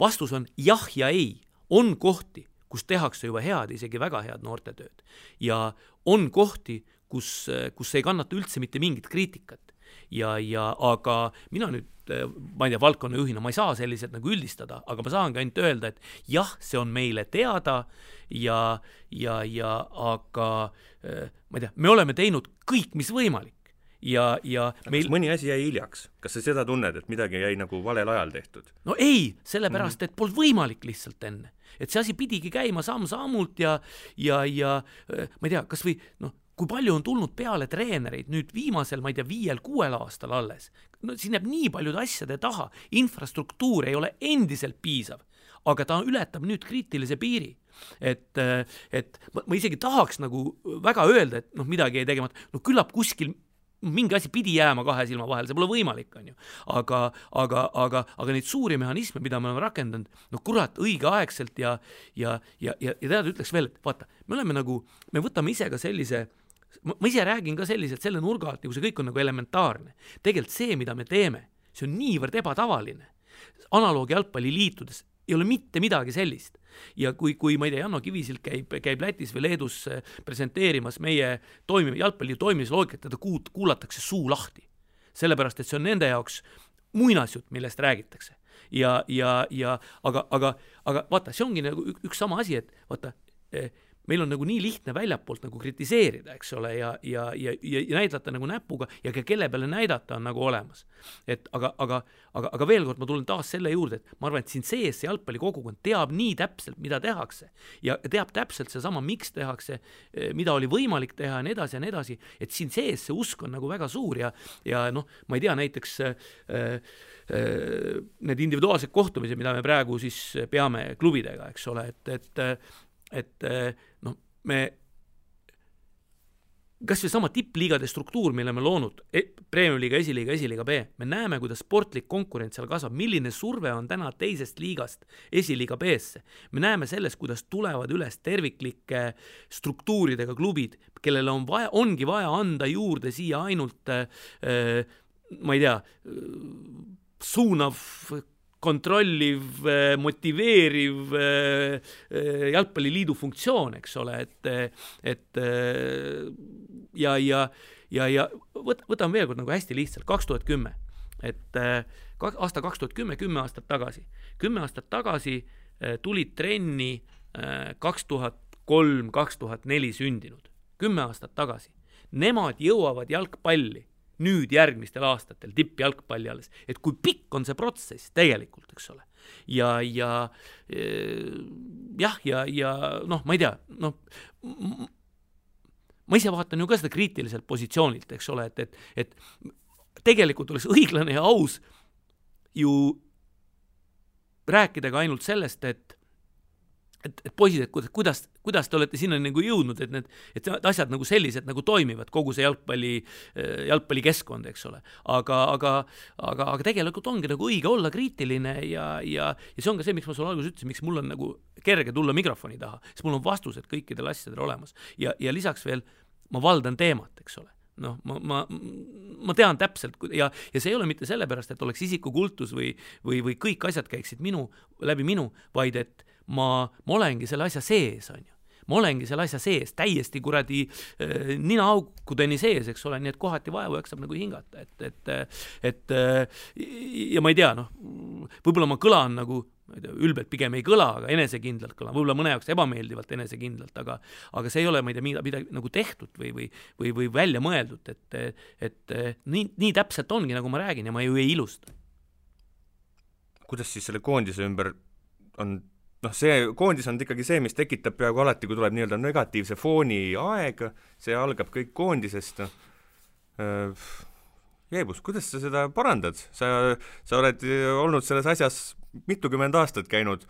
Speaker 3: vastus on jah ja ei. On kohti, kus tehakse juba head, isegi väga head noortetööd. Ja on kohti, kus ei kannata üldse mitte mingit kriitikat. Aga mina nüüd, ma ei tea, valdkonna juhina, ma ei saa selliselt nagu üldistada, aga ma saangi ainult öelda, et jah, see on meile teada aga ma ei tea, me oleme teinud kõik, mis võimalik.
Speaker 2: Kas mõni asi jäi hiljaks? Kas sa seda tunned, et midagi jäi nagu valel ajal tehtud?
Speaker 3: No ei, sellepärast, et polnud võimalik lihtsalt enne. Et see asi pidigi käima samm-sammult ja ma ei tea, kas või kui palju on tulnud peale treenereid nüüd viimasel, ma ei tea, 5-6 aastal alles. No, siin jääb nii paljude asjade taha. Infrastruktuur ei ole endiselt piisav, aga ta ületab nüüd kriitilise piiri. Et ma isegi tahaks nagu väga öelda, et midagi ei tegemat. Küllap kuskil mingi asi pidi jääma 2 silma vahel, see pole võimalik, on ju. Aga neid suuri mehhanisme, mida me oleme rakendanud, kurat, õigeaegselt ja tead ütleks veel, et vaata, me võtame ise ka sellise, ma ise räägin ka selliselt selle nurga alt, nagu see kõik on nagu elementaarne. Tegelikult see, mida me teeme, see on niivõrd ebatavaline. Analoogi jalgpalliliitudes ei ole mitte midagi sellist. Ja kui ma ei tea, Janno Kivisilt käib Lätis või Leedus presenteerimas meie jalgpalli toimimisloogikat, teda kuulatakse suu lahti. Sellepärast, et see on nende jaoks muinasjutt, millest räägitakse. Aga vaata, see ongi nagu üks sama asi, et vaata, meil on nagu nii lihtne väljapoolt nagu kritiseerida, eks ole, ja näidata nagu näpuga ja kelle peale näidata on nagu olemas. Aga veel kord ma tulen taas selle juurde, et ma arvan, et siin sees see jalgpallikogukond teab nii täpselt, mida tehakse ja teab täpselt see sama, miks tehakse, mida oli võimalik teha ja nii edasi, et siin sees see usk on nagu väga suur ja ma ei tea, näiteks need individuaalsed kohtumised, mida me praegu siis peame klubidega, eks ole, et me kas või sama tippliigade struktuur, mille me loonud, Premium-liiga, esiliiga B, me näeme, kuidas sportlik konkurents seal kasvab, milline surve on täna teisest liigast esiliiga B-sse. Me näeme sellest, kuidas tulevad üles terviklike struktuuridega klubid, kellele ongi vaja anda juurde siia ainult, ma ei tea, suunav, kontrolliv, motiveeriv jalgpalliliidu funktsioon, eks ole, ja võtame veel kord nagu hästi lihtsalt, 2010, et aasta 2010, 10 aastat tagasi. 10 aastat tagasi tulid trenni 2003, 2004 sündinud. 10 aastat tagasi. Nemad jõuavad jalgpalli nüüd järgmistel aastatel tippjalgpalli alles, et kui pikk on see protsess tegelikult, eks ole. Ja ma ei tea, ma ise vaatan ju ka seda kriitiliselt positsioonilt, eks ole, et tegelikult oleks õiglane ja aus ju rääkida ka ainult sellest, et poisid, et kuidas te olete sinna nagu jõudnud, et asjad nagu sellised nagu toimivad, kogu see jalgpallikeskkond, eks ole. Aga tegelikult ongi nagu õige olla kriitiline ja see on ka see, miks ma sulle alguses ütlesin, miks mul on nagu kerge tulla mikrofoni taha, sest mul on vastused kõikidel asjadel olemas. Ja lisaks veel, ma valdan teemat, eks ole. Ma tean täpselt ja see ei ole mitte sellepärast, et oleks isikukultus või kõik asjad käiksid läbi minu, vaid et ma olengi selle asja sees, on ju. ma olengi selle asja sees, täiesti kuradi ninaaukudeni sees, eks ole, nii et kohati vaevu jaksab nagu hingata, et ja ma ei tea, võib-olla ma kõlan nagu ülbelt pigem ei kõla, aga enesekindlalt kõlan, võib-olla mõne jaoks ebameeldivalt enesekindlalt, aga see ei ole, ma ei tea, midagi nagu tehtud või välja mõeldud, et nii täpselt ongi, nagu ma räägin ja ma ju ei ilusta.
Speaker 2: Kuidas siis selle koondise ümber on, see koondis on ikkagi see, mis tekitab peaaegu alati, kui tuleb nii-öelda negatiivse fooni aeg, see algab kõik koondisest. Jeebus, kuidas sa seda parandad? Sa oled olnud selles asjas mitukümmend aastat käinud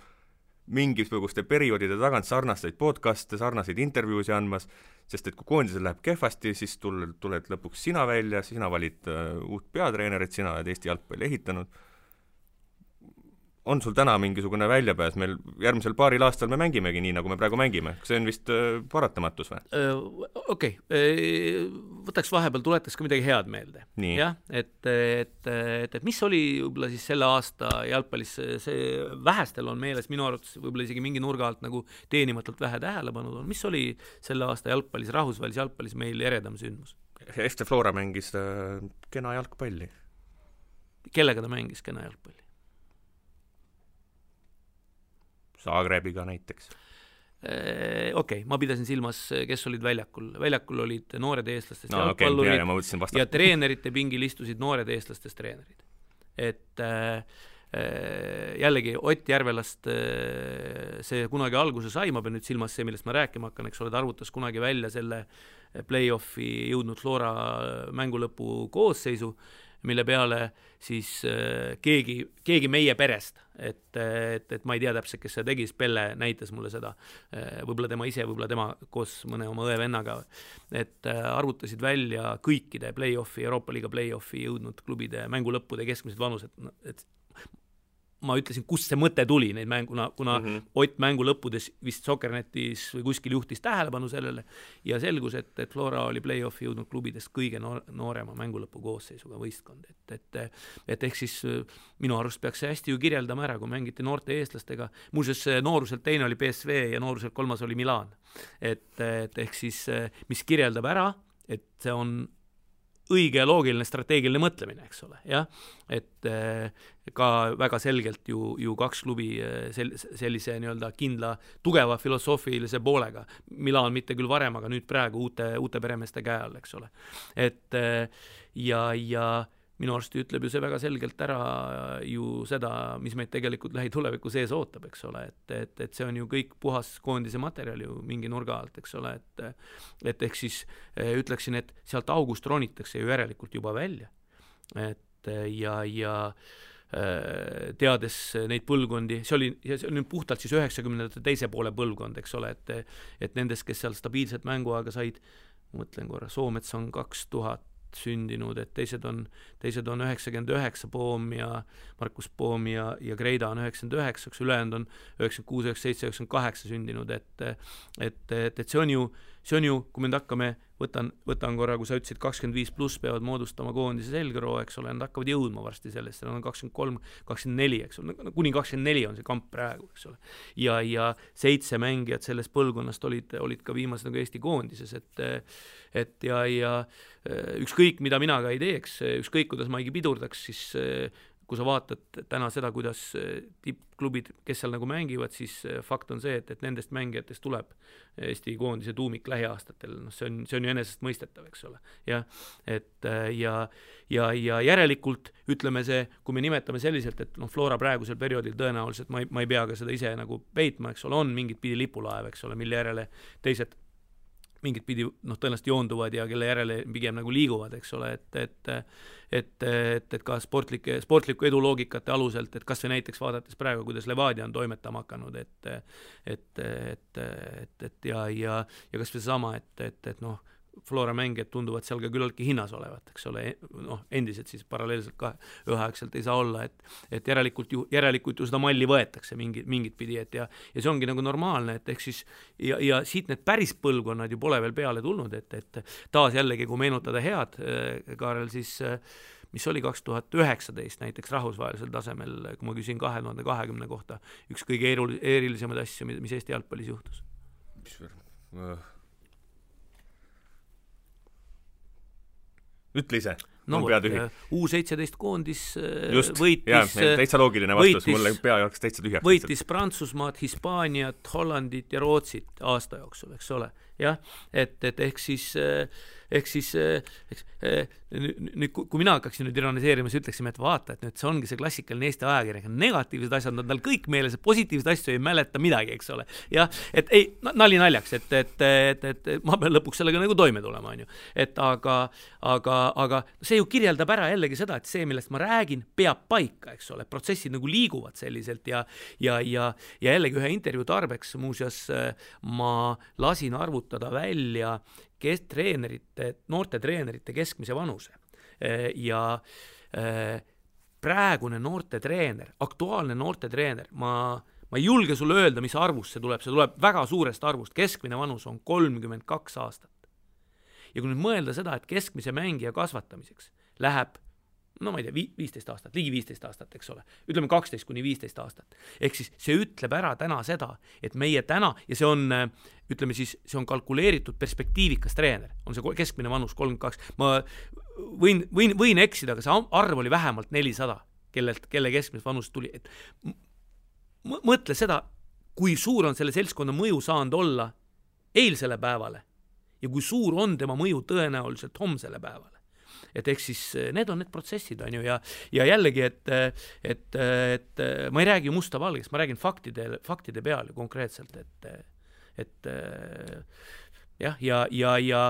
Speaker 2: mingisuguste perioodide tagant sarnaseid podcaste, sarnaseid intervjuusi andmas, sest et kui koondisel läheb kehvasti, siis tuled lõpuks sina välja, sina valid uut peatreenerit, sina oled Eesti jalgpalli ehitanud. On sul täna mingisugune väljapääs? Meil järgmisel paaril aastal me mängimegi nii, nagu me praegu mängime. See on vist paratamatus või?
Speaker 3: Okei. Võtaks vahepeal, tuletaks ka midagi head meelde.
Speaker 2: Nii.
Speaker 3: Ja, et mis oli võib-olla siis selle aasta jalgpallis, see vähestel on meeles, minu arvates võib-olla isegi mingi nurga alt nagu teenimatult vähe tähelepanu on. Mis oli selle aasta jalgpallis, rahvusvahelis jalgpallis meil eredam sündmus?
Speaker 2: FC Flora mängis kena jalgpalli.
Speaker 3: Kellega ta mängis kena jalgpalli?
Speaker 2: Zagrebiga näiteks.
Speaker 3: Okei, ma pidasin silmas, kes olid väljakul. Väljakul olid noored eestlastest jalgpallurid ja treenerite pingil istusid noored eestlastest treenerid. Et jällegi Ott Järvelast see kunagi alguse sai, ma pean nüüd silmas see, millest ma rääkima hakkan, eks ole, ta arvutas kunagi välja selle play-offi jõudnud Flora mängulõpu koosseisu, mille peale siis keegi meie perest, et ma ei tea täpselt, kes see tegi, Pelle näitas mulle seda, võib-olla tema ise, võib-olla tema koos mõne oma õe-vennaga, et arvutasid välja kõikide play-offi, Euroopa Liiga play-offi jõudnud klubide mängulõppude keskmised vanused, et ma ütlesin, kust see mõte tuli neid mänguna, kuna Ott mängu lõppudes vist Soccernetis või kuskil juhtis tähelepanu sellele ja selgus, et Flora oli play-offi jõudnud klubidest kõige noorema mängulõpu koosseisuga võistkond. Et ehk siis minu arust peaks see hästi ju kirjeldama ära, kui mängiti noorte eestlastega. Muuseas, nooruselt teine oli PSV ja nooruselt kolmas oli Milan. Et ehk siis, mis kirjeldab ära, et see on õige ja loogiline strateegiline mõtlemine, eks ole, jah, et ka väga selgelt ju kaks klubi sellise nii-öelda kindla, tugeva filosoofilise poolega, Milan mitte küll varem, aga nüüd praegu uute peremeeste käe all, eks ole, et ja minu arust ütleb ju see väga selgelt ära ju seda, mis meid tegelikult lähituleviku sees ootab, eks ole, et see on ju kõik puhas koondise materjal ju mingi nurga alt, eks ole, et ehk siis ütleksin, et sealt august ronitakse ju järelikult juba välja, et ja teades neid põlvkondi, see oli puhtalt siis 90ndate teise poole põlvkond, eks ole, et nendest, kes seal stabiilset mänguaega said, mõtlen korra, Soomets on 2000 sündinud, et teised on 99 Poom ja Markus Poom ja Greida on 99, ülejäänud on 96, 97, 98 sündinud, et see on ju, kui me nüüd hakkame, võtan korra, kui sa ütlesid 25 pluss peavad moodustama koondise selgroo, eks ole, nad hakkavad jõudma varsti sellest, nad on 23, 24, eks ole, kuni 24 on see kamp praegu, eks ole. Ja 7 mängijad sellest põlvkonnast olid ka viimased nagu Eesti koondises, et ja ükskõik, mida mina ka ei teeks, ükskõik, kuidas ma ei pidurdaks, siis kui sa vaatad täna seda, kuidas tippklubid, kes seal nagu mängivad, siis fakt on see, et nendest mängijatest tuleb Eesti koondise tuumik lähiaastatel, see on ju enesest mõistetav, eks ole. Ja järelikult ütleme see, kui me nimetame selliselt, et Flora praegusel perioodil tõenäoliselt, ma ei pea ka seda ise nagu peitma, eks ole, on mingit pidi lipulaev, eks ole, mille järele teised mingit pidi tõenäoliselt joonduvad ja kelle järele pigem nagu liiguvad, eks ole, et ka sportliku edu loogikate aluselt, et kas või näiteks vaadates praegu, kuidas Levadia on toimetama hakanud, ja kas või sama, et Flora mängijad tunduvad seal ka küllaltki hinnas olevat, eks ole, endiselt siis paralleelselt ka üheaegselt ei saa olla, et järelikult ju seda malli võetakse mingit pidi, ja see ongi nagu normaalne, et ehk siis ja siit need päris põlvkonnad ju pole veel peale tulnud, et taas jällegi, kui meenutada head, Kaarel, siis mis oli 2019 näiteks rahvusvahelisel tasemel, kui ma küsin 2020 kohta, üks kõige erilisemaid asju, mis Eesti jalgpallis juhtus.
Speaker 2: Ütle ise.
Speaker 3: No, U17 koondis võitis,
Speaker 2: täitsa loogiline vastus, mulle pea jooksis täitsa tühjaks.
Speaker 3: Võitis Prantsusmaad, Hispaaniat, Hollandit ja Rootsit aasta jooksul, eks ole. Jah, et ehk siis nüüd, kui mina hakkaksin nüüd ironiseerima, siis ütleksime, et vaata, et nüüd see ongi see klassikaline Eesti ajakirjanik, negatiivsed asjad on tal kõik meeles, positiivsed asju ei mäleta midagi, eks ole. Ja, et ei, nali naljaks, et ma pean lõpuks sellega nagu toime tulema, on ju. Et aga see ju kirjeldab ära jällegi seda, et see, millest ma räägin, peab paika, eks ole, protsessid nagu liiguvad selliselt ja jällegi ühe intervjuu tarbeks muuseas ma lasin arvutada välja noorte treenerite keskmise vanuse ja praegune noorte treener, aktuaalne noorte treener, ma ei julge sulle öelda, mis arvust see tuleb väga suurest arvust, keskmine vanus on 32 aastat. Ja kui nüüd mõelda seda, et keskmise mängija kasvatamiseks läheb no ma ei tea, 15 aastat, ligi 15 aastat, eks ole. Ütleme 12 kuni 15 aastat. Ehk siis see ütleb ära täna seda, et meie täna, ja see on, ütleme siis, see on kalkuleeritud perspektiivikas treener, on see keskmine vanus 32. Ma võin eksida, aga see arv oli vähemalt 400, kelle keskmine vanus tuli. Et mõtle seda, kui suur on selle seltskonna mõju saanud olla eilsele päevale ja kui suur on tema mõju tõenäoliselt homsele päevale. Et ehk siis need on need protsessid, on ju, ja jällegi, et ma ei räägi musta valgest, ma räägin faktide peal konkreetselt, et jah, ja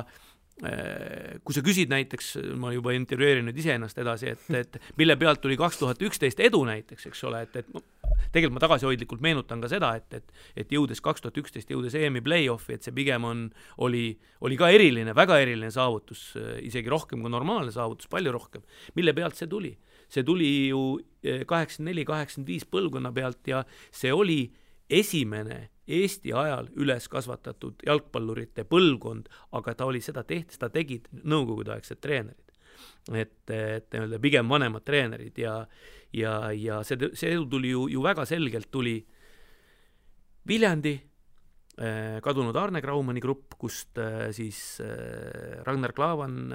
Speaker 3: kui sa küsid näiteks, ma juba intervjueerin nüüd iseennast edasi, et mille pealt tuli 2011 edu näiteks, eks ole, et tegelikult ma tagasihoidlikult meenutan ka seda, et jõudes 2011 jõudes EM-i play-offi, et see pigem oli ka eriline, väga eriline saavutus, isegi rohkem kui normaalne saavutus, palju rohkem. Mille pealt see tuli? See tuli ju 84-85 põlvkonna pealt ja see oli esimene Eesti ajal üles kasvatatud jalgpallurite põlvkond, aga ta oli seda tegid nõukogudeaegsed treenerid. Et pigem vanemad treenerid ja see tuli ju väga selgelt tuli Viljandi, kadunud Arne Graumani grupp, kust siis Ragnar Klavan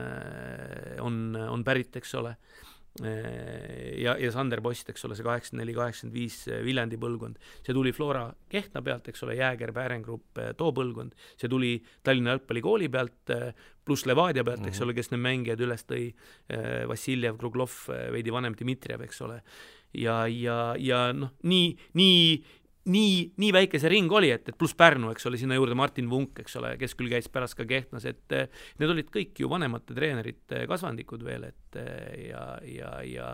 Speaker 3: on pärit, eks ole, ja Sander Post, eks ole, see 84-85 Viljandi põlvkond. See tuli Flora Kehtna pealt, eks ole, Jääger, Päärengrupp, too põlvkond. See tuli Tallinna jalgpallikooli pealt, pluss Levadia pealt, eks ole, kes need mängijad üles tõi, Vassiljev, Kruglov, veidi vanem Dmitrijev, eks ole. Ja noh, nii väike see ring oli, et pluss Pärnu, eks ole, sinna juurde Martin Vunk, eks ole, kes küll käis pärast ka Kehtnas, et need olid kõik ju vanemate treenerite kasvandikud veel, et ja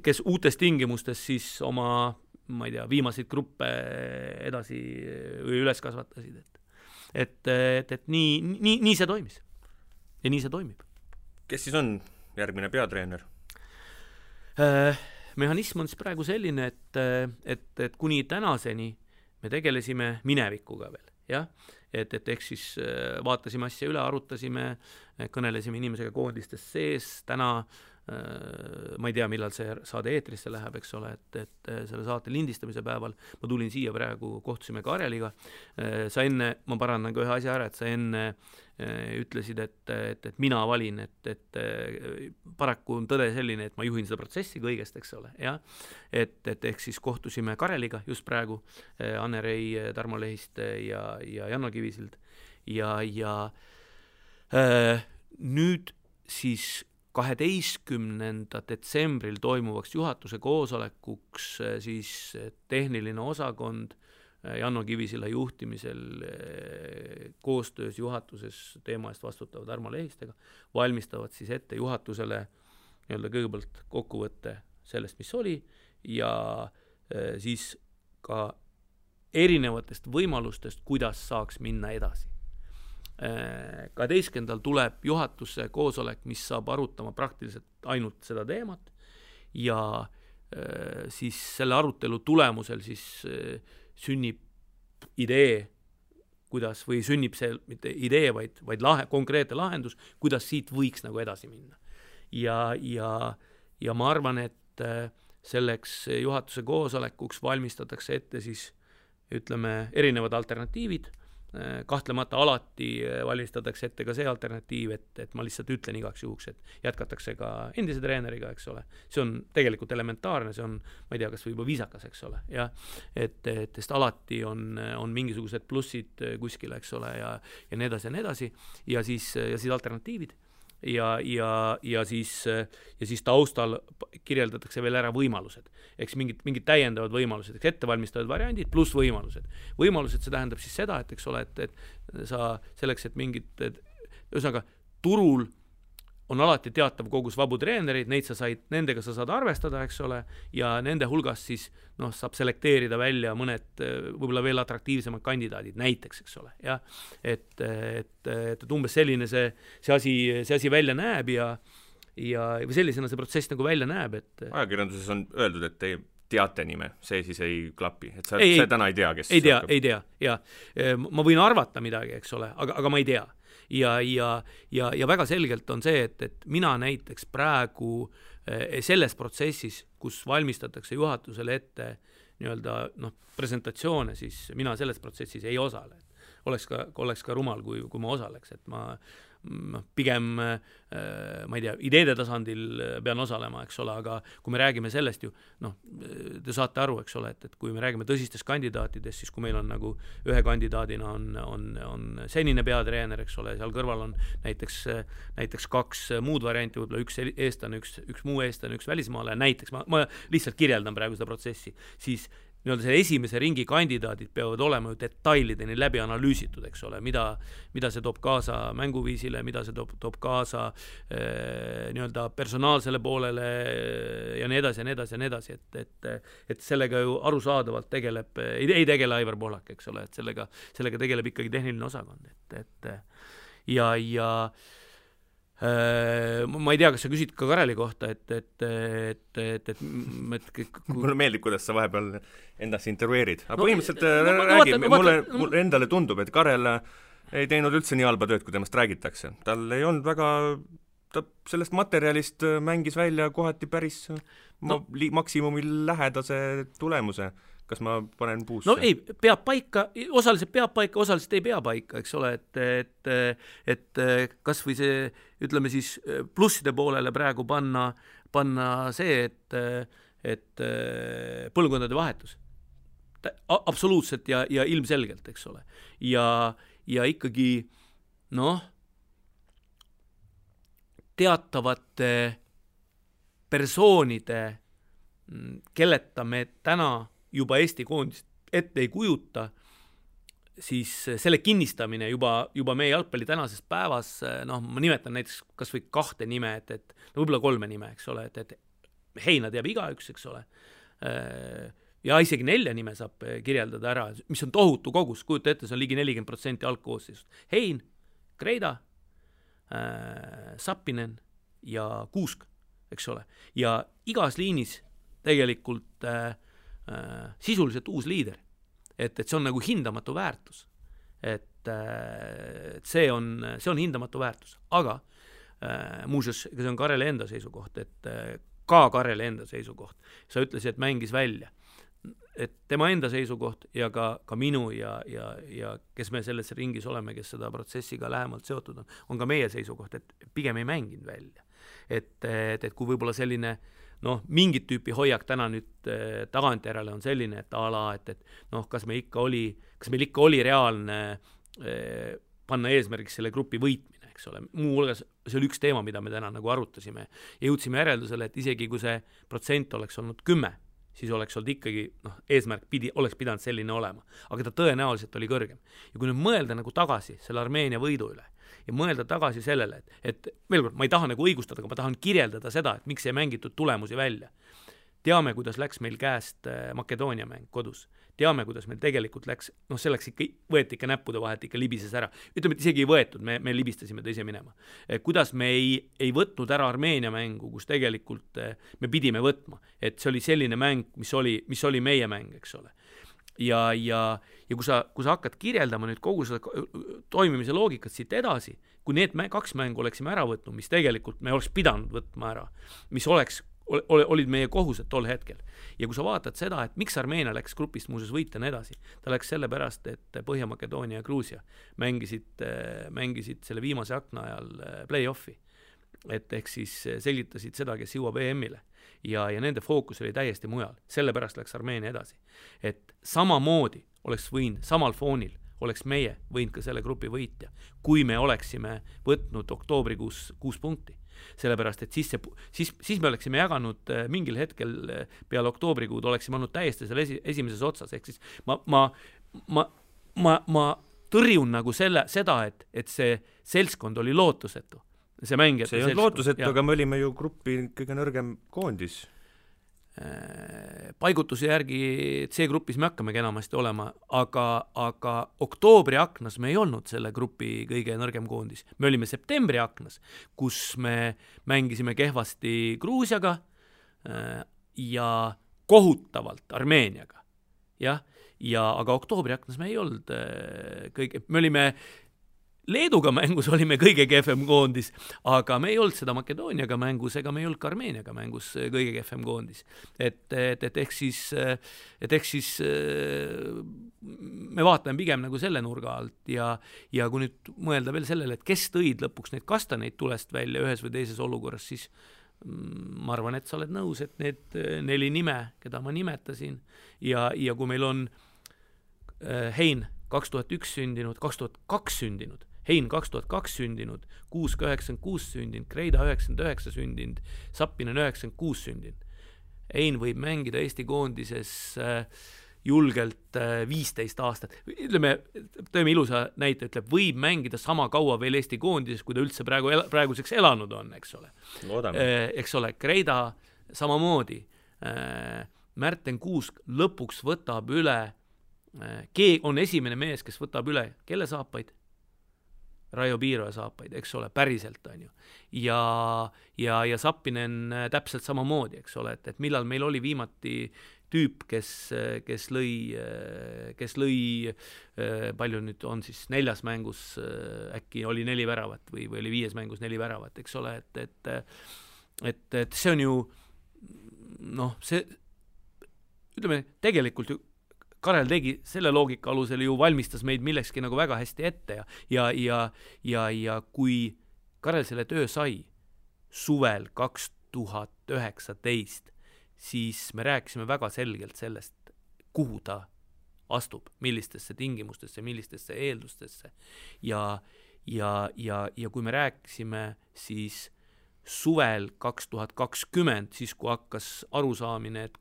Speaker 3: kes uutes tingimustes siis oma, ma ei tea, viimaseid gruppe edasi või üles kasvatasid, et nii see toimis ja nii see toimib.
Speaker 2: Kes siis on järgmine peatreener?
Speaker 3: Mehhanism on siis praegu selline, et kuni tänaseni me tegelesime minevikuga veel, jah? Et ehk siis vaatasime asja üle, arutasime, kõnelesime inimesega koondistes sees, täna ma ei tea, millal see saade eetrisse läheb, eks ole, et selle saate lindistamise päeval ma tulin siia praegu, kohtusime Kareliga, sa enne, ma parandan ka ühe asja ära, et sa enne ütlesid, et mina valin, et paraku on tõde selline, et ma juhin seda protsessi kõigest, eks ole, jah, et ehk siis kohtusime Kareliga just praegu, Anne-Rei Tarmo Lehist ja Janno Kivisild ja nüüd siis 12. detsembril toimuvaks juhatuse koosolekuks siis tehniline osakond Janno Kivisilla juhtimisel koostöös juhatuses teema eest vastutavad Tarmo Lehistega valmistavad siis ette juhatusele kõigepealt kokkuvõtte sellest, mis oli ja siis ka erinevatest võimalustest, kuidas saaks minna edasi. 12. tuleb juhatuse koosolek, mis saab arutama praktiliselt ainult seda teemat ja siis selle arutelu tulemusel siis sünnib idee, kuidas, või sünnib see mitte idee, vaid konkreetne lahendus, kuidas siit võiks nagu edasi minna. Ja ma arvan, et selleks juhatuse koosolekuks valmistatakse ette siis, ütleme, erinevad alternatiivid, kahtlemata alati valistatakse ette ka see alternatiiv, et ma lihtsalt ütlen igaks juhuks, et jätkatakse ka endise treeneriga, eks ole. See on tegelikult elementaarne, see on, ma ei tea, kas võib-olla viisakas, eks ole. Ja, et alati on mingisugused plussid kuskil, eks ole, ja nii edasi ja nii edasi. Ja siis alternatiivid. Ja siis taustal kirjeldatakse veel ära võimalused. Eks mingid täiendavad võimalused, eks ettevalmistavad variandid pluss võimalused. Võimalused, see tähendab siis seda, et eks ole, et sa selleks, et ühesõnaga turul on alati teatav kogus vabu treenereid, nendega sa saad arvestada, eks ole, ja nende hulgas siis saab selekteerida välja mõned võib-olla veel atraktiivsemad kandidaadid, näiteks, eks ole. Ja, et umbes selline see asi välja näeb ja või sellisena see protsess nagu välja näeb.
Speaker 2: Ajakirjanduses on öeldud, et te teate nime, see siis ei klapi, et sa täna ei tea, kes
Speaker 3: ei tea, ja ma võin arvata midagi, eks ole, aga ma ei tea. Ja väga selgelt on see, et mina näiteks praegu selles protsessis, kus valmistatakse juhatusele ette presentatsioone, siis mina selles protsessis ei osale. Oleks ka rumal, kui ma osaleks, et ma pigem, ma ei tea, ideede tasandil pean osalema, eks ole, aga kui me räägime sellest ju, te saate aru, eks ole, et kui me räägime tõsistest kandidaatidest, siis kui meil on nagu ühe kandidaadina on senine peatreener, eks ole, seal kõrval on näiteks kaks muud varianti, võib-olla üks eestlane, üks muu eestlane, üks välismaale, näiteks, ma lihtsalt kirjeldan praegu seda protsessi, siis see esimese ringi kandidaadid peavad olema ju detailideni läbi analüüsitud, eks ole, mida see toob kaasa mänguviisile, mida see toob kaasa personaalsele poolele ja nii edasi ja nii edasi ja nii edasi, et sellega ju arusaadavalt ei tegele Aivar Pohlak, eks ole, et sellega tegeleb ikkagi tehniline osakond, ja ma ei tea, kas sa küsid ka Kareli kohta,
Speaker 2: mulle meeldib, kuidas sa vahepeal endast intervjueerid. Aga põhimõtteliselt mulle endale tundub, et Karel ei teinud üldse nii halba tööd, kui temast räägitakse. Tal ei olnud ta sellest materjalist mängis välja kohati päris maksimumil lähedase tulemuse. Kas ma panen puusse?
Speaker 3: No ei, peab paika, osaliselt peab paika, osaliselt ei pea paika, eks ole, et kas või see, ütleme siis, plusside poolele praegu panna see, et põlvkondade vahetus. Absoluutselt ja ilmselgelt, eks ole. Ja ikkagi, teatavate persoonide, kelleta me täna juba Eesti koondist ette ei kujuta, siis selle kinnistamine juba meie jalgpalli tänases päevas, ma nimetan näiteks kas või 2 nime, et võib-olla 3 nime, eks ole, et Heina teab igaüks, eks ole, ja isegi 4 nime saab kirjeldada ära, mis on tohutu kogus, kujuta ette, see on ligi 40% algkoosseisust. Hein, Kreida, Sappinen ja Kuusk, eks ole, ja igas liinis tegelikult sisuliselt uus liider, et see on nagu hindamatu väärtus, et see on hindamatu väärtus, aga muuseas, see on Kareli enda seisukoht, et ka Kareli enda seisukoht, sa ütlesid, et mängis välja, et tema enda seisukoht ja ka minu ja kes me selles ringis oleme, kes seda protsessiga lähemalt seotud on ka meie seisukoht, et pigem ei mänginud välja, et kui võib-olla selline mingit tüüpi hoiak täna nüüd tagantjärele on selline, et et kas meil ikka oli reaalne panna eesmärgiks selle grupi võitmine, eks ole. Muu hulgas see oli üks teema, mida me täna nagu arutasime ja jõudsime järeldusele, et isegi kui see protsent oleks olnud 10, siis oleks olnud ikkagi, eesmärk oleks pidanud selline olema, aga ta tõenäoliselt oli kõrgem. Ja kui nüüd mõelda nagu tagasi selle Armeenia võidu üle ja mõelda tagasi sellele, et veel kord, ma ei taha nagu õigustada, aga ma tahan kirjeldada seda, et miks ei mängitud tulemusi välja. Teame, kuidas läks meil käest Makedoonia mäng kodus. Teame, kuidas meil tegelikult läks, selleks ikka võeti ikka näppude vahelt, ikka libises ära. Ütleme, et isegi ei võetud, me libistasime teise minema. Kuidas me ei võtnud ära Armeenia mängu, kus tegelikult me pidime võtma. Et see oli selline mäng, mis oli meie mäng, eks ole. Ja kui sa hakkad kirjeldama nüüd kogu seda toimimise loogikat siit edasi, kui need 2 mängu oleksime ära võtnud, mis tegelikult me oleks pidanud võtma ära, mis oleks olid meie kohused tol hetkel. Ja kui sa vaatad seda, et miks Armeenia läks grupist muuseas võita ja nii edasi, ta läks sellepärast, et Põhja-Makedoonia ja Gruusia mängisid selle viimase akna ajal play-offi. Et ehk siis selgitasid seda, kes jõuab EM-ile. Ja nende fookus oli täiesti mujal. Sellepärast läks Armeenia edasi. Et samamoodi oleks võinud, samal foonil oleks meie võinud ka selle grupi võitja, kui me oleksime võtnud oktoobrikuus 6 punkti. Sellepärast, et siis me oleksime jaganud mingil hetkel peale oktoobrikuud, oleksime olnud täiesti selle esimeses otsas. Ehk siis ma tõrjun nagu seda, et see seltskond oli lootusetu. See ei
Speaker 2: olnud lootusetu, aga me olime ju grupi kõige nõrgem koondis.
Speaker 3: Paigutuse järgi C-grupis me hakkamegi enamasti olema, aga oktoobri aknas me ei olnud selle grupi kõige nõrgem koondis. Me olime septembri aknas, kus me mängisime kehvasti Gruusiaga ja kohutavalt Armeeniaga. Aga oktoobri aknas me ei olnud me olime Leeduga mängus olime kõige kehvem koondis, aga me ei olnud seda Makedooniaga mängus ega me ei olnud ka Armeeniaga mängus kõige kehvem koondis. Et ehk siis me vaatame pigem nagu selle nurga alt ja kui nüüd mõelda veel sellele, et kes tõid lõpuks neid kastaneid tulest välja ühes või teises olukorras, siis ma arvan, et sa oled nõus, et need 4 nime, keda ma nimetasin ja kui meil on Hein 2001 sündinud, 2002 sündinud, Hein 2002 sündinud, 96 sündinud, Kreida 99 sündinud, Sappinen 96 sündinud. Hein võib mängida Eesti koondises julgelt 15 aastat. Ütleme, tõime ilusa näite, ütleb, võib mängida sama kaua veel Eesti koondises, kui ta üldse praeguseks elanud on, eks ole. Eks ole, Kreida samamoodi. Märten Kuusk lõpuks võtab üle, on esimene mees, kes võtab üle, kelle saapaid? Raio Piiroja saapaid, eks ole, päriselt on ju. Ja Sappinen täpselt samamoodi, eks ole, et millal meil oli viimati tüüp, kes lõi palju nüüd on siis 4 mängus, äkki oli 4 väravat või oli 5 mängus 4 väravat, eks ole, et see on ju see ütleme, tegelikult ju Karel tegi selle loogika alusel ju valmistas meid millekski nagu väga hästi ette ja kui Karel selle töö sai suvel 2019, siis me rääkisime väga selgelt sellest, kuhu ta astub, millistesse tingimustesse, millistesse eeldustesse ja kui me rääkisime siis suvel 2020, siis kui hakkas arusaamine, et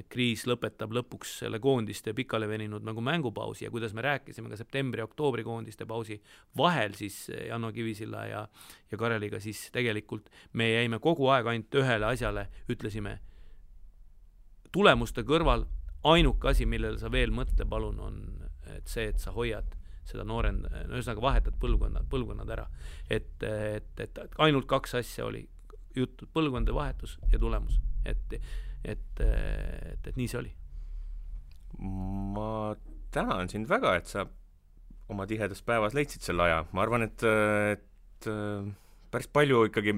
Speaker 3: kriis lõpetab lõpuks selle koondiste pikale veninud nagu mängupausi ja kuidas me rääkisime ka septembri-oktoobri koondiste pausi vahel siis Janno Kivisilla ja Kareliga, siis tegelikult me jäime kogu aeg ainult ühele asjale, ütlesime tulemuste kõrval ainuke asi, millele sa veel mõtle palun on et see, et sa hoiad seda ühesõnaga vahetad põlvkonnad ära. Et ainult 2 asja oli juttu, põlvkondade vahetus ja tulemus. Et nii see oli.
Speaker 2: Ma tänan sind väga, et sa oma tihedas päevas leidsid selle aja. Ma arvan, et päris palju ikkagi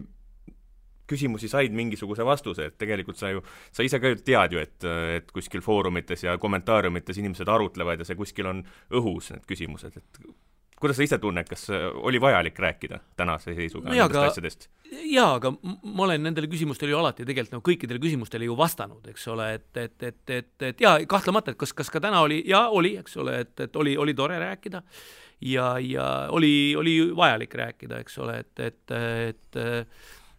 Speaker 2: küsimusi said mingisuguse vastuse, et tegelikult sa ise ka tead ju, et kuskil foorumites ja kommentaariumites inimesed arutlevad ja see kuskil on õhus need küsimused, et kuidas sa ise tunned, kas oli vajalik rääkida tänase seisuga nendest asjadest?
Speaker 3: Jaa, aga ma olen nendele küsimustele ju alati tegelikult kõikidele küsimustele ju vastanud, eks ole, et jaa, kahtlemata, et kas ka täna oli, eks ole, et oli tore rääkida ja oli vajalik rääkida, eks ole, et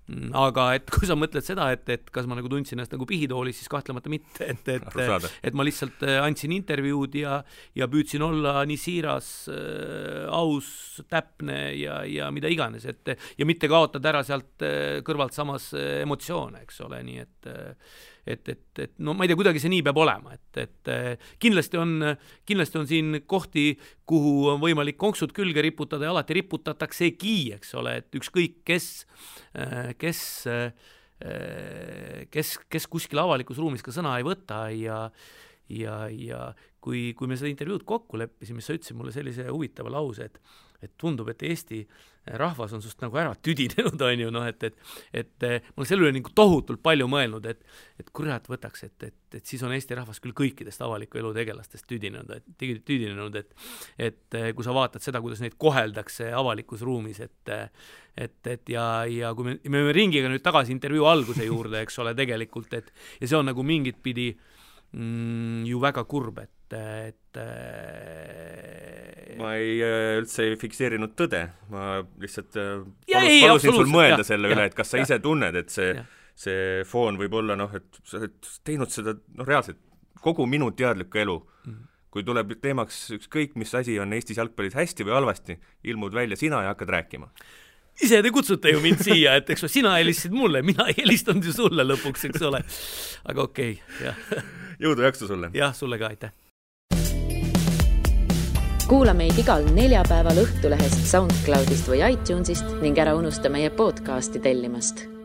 Speaker 3: aga et kui sa mõtled seda, et kas ma nagu tundsin ennast nagu pihitoolis, siis kahtlemata mitte, et ma lihtsalt andsin intervjuud ja püüdsin olla nii siiras, aus, täpne ja mida iganes, ja mitte kaotada ära sealt kõrvalt samas emotsioone, eks ole, nii et no ma ei tea, kuidagi see nii peab olema, et kindlasti on siin kohti, kuhu on võimalik konksud külge riputada ja alati riputataksegi, eks ole, et ükskõik kes kuskil avalikus ruumis ka sõna ei võta ja kui me seda intervjuud kokku leppisime, sa ütlesid mulle sellise huvitava lause, et tundub, et Eesti rahvas on sust nagu ära tüdinenud, on ju, et ma olen selle üle nagu tohutult palju mõelnud, et kurat võtaks, et siis on Eesti rahvas küll kõikidest avaliku elu tegelastest tüdinenud, et kui sa vaatad seda, kuidas neid koheldakse avalikus ruumis, ja kui me ringiga nüüd tagasi intervjuu alguse juurde, eks ole, tegelikult, ja see on nagu mingit pidi ju väga kurb,
Speaker 2: ma üldse ei fikseerinud tõde, ma lihtsalt palusin sul mõelda selle üle, et kas sa ise tunned, et see foon võib olla, et sa oled teinud seda reaalselt kogu minu teadlikku elu. Kui tuleb teemaks ükskõik, mis asi on Eestis jalgpallis hästi või halvasti, ilmud välja sina ja hakkad rääkima.
Speaker 3: Ise te kutsute ju mind siia, et eks sina helistasid mulle, mina ei helistanud ju sulle lõpuks, eks ole. Aga okei, jah.
Speaker 2: Jõudu jaksu sulle.
Speaker 3: Jah, sulle ka, aitäh.
Speaker 1: Kuula meid igal neljapäeval Õhtulehest, SoundCloudist või iTunesist ning ära unusta meie podcasti tellimast.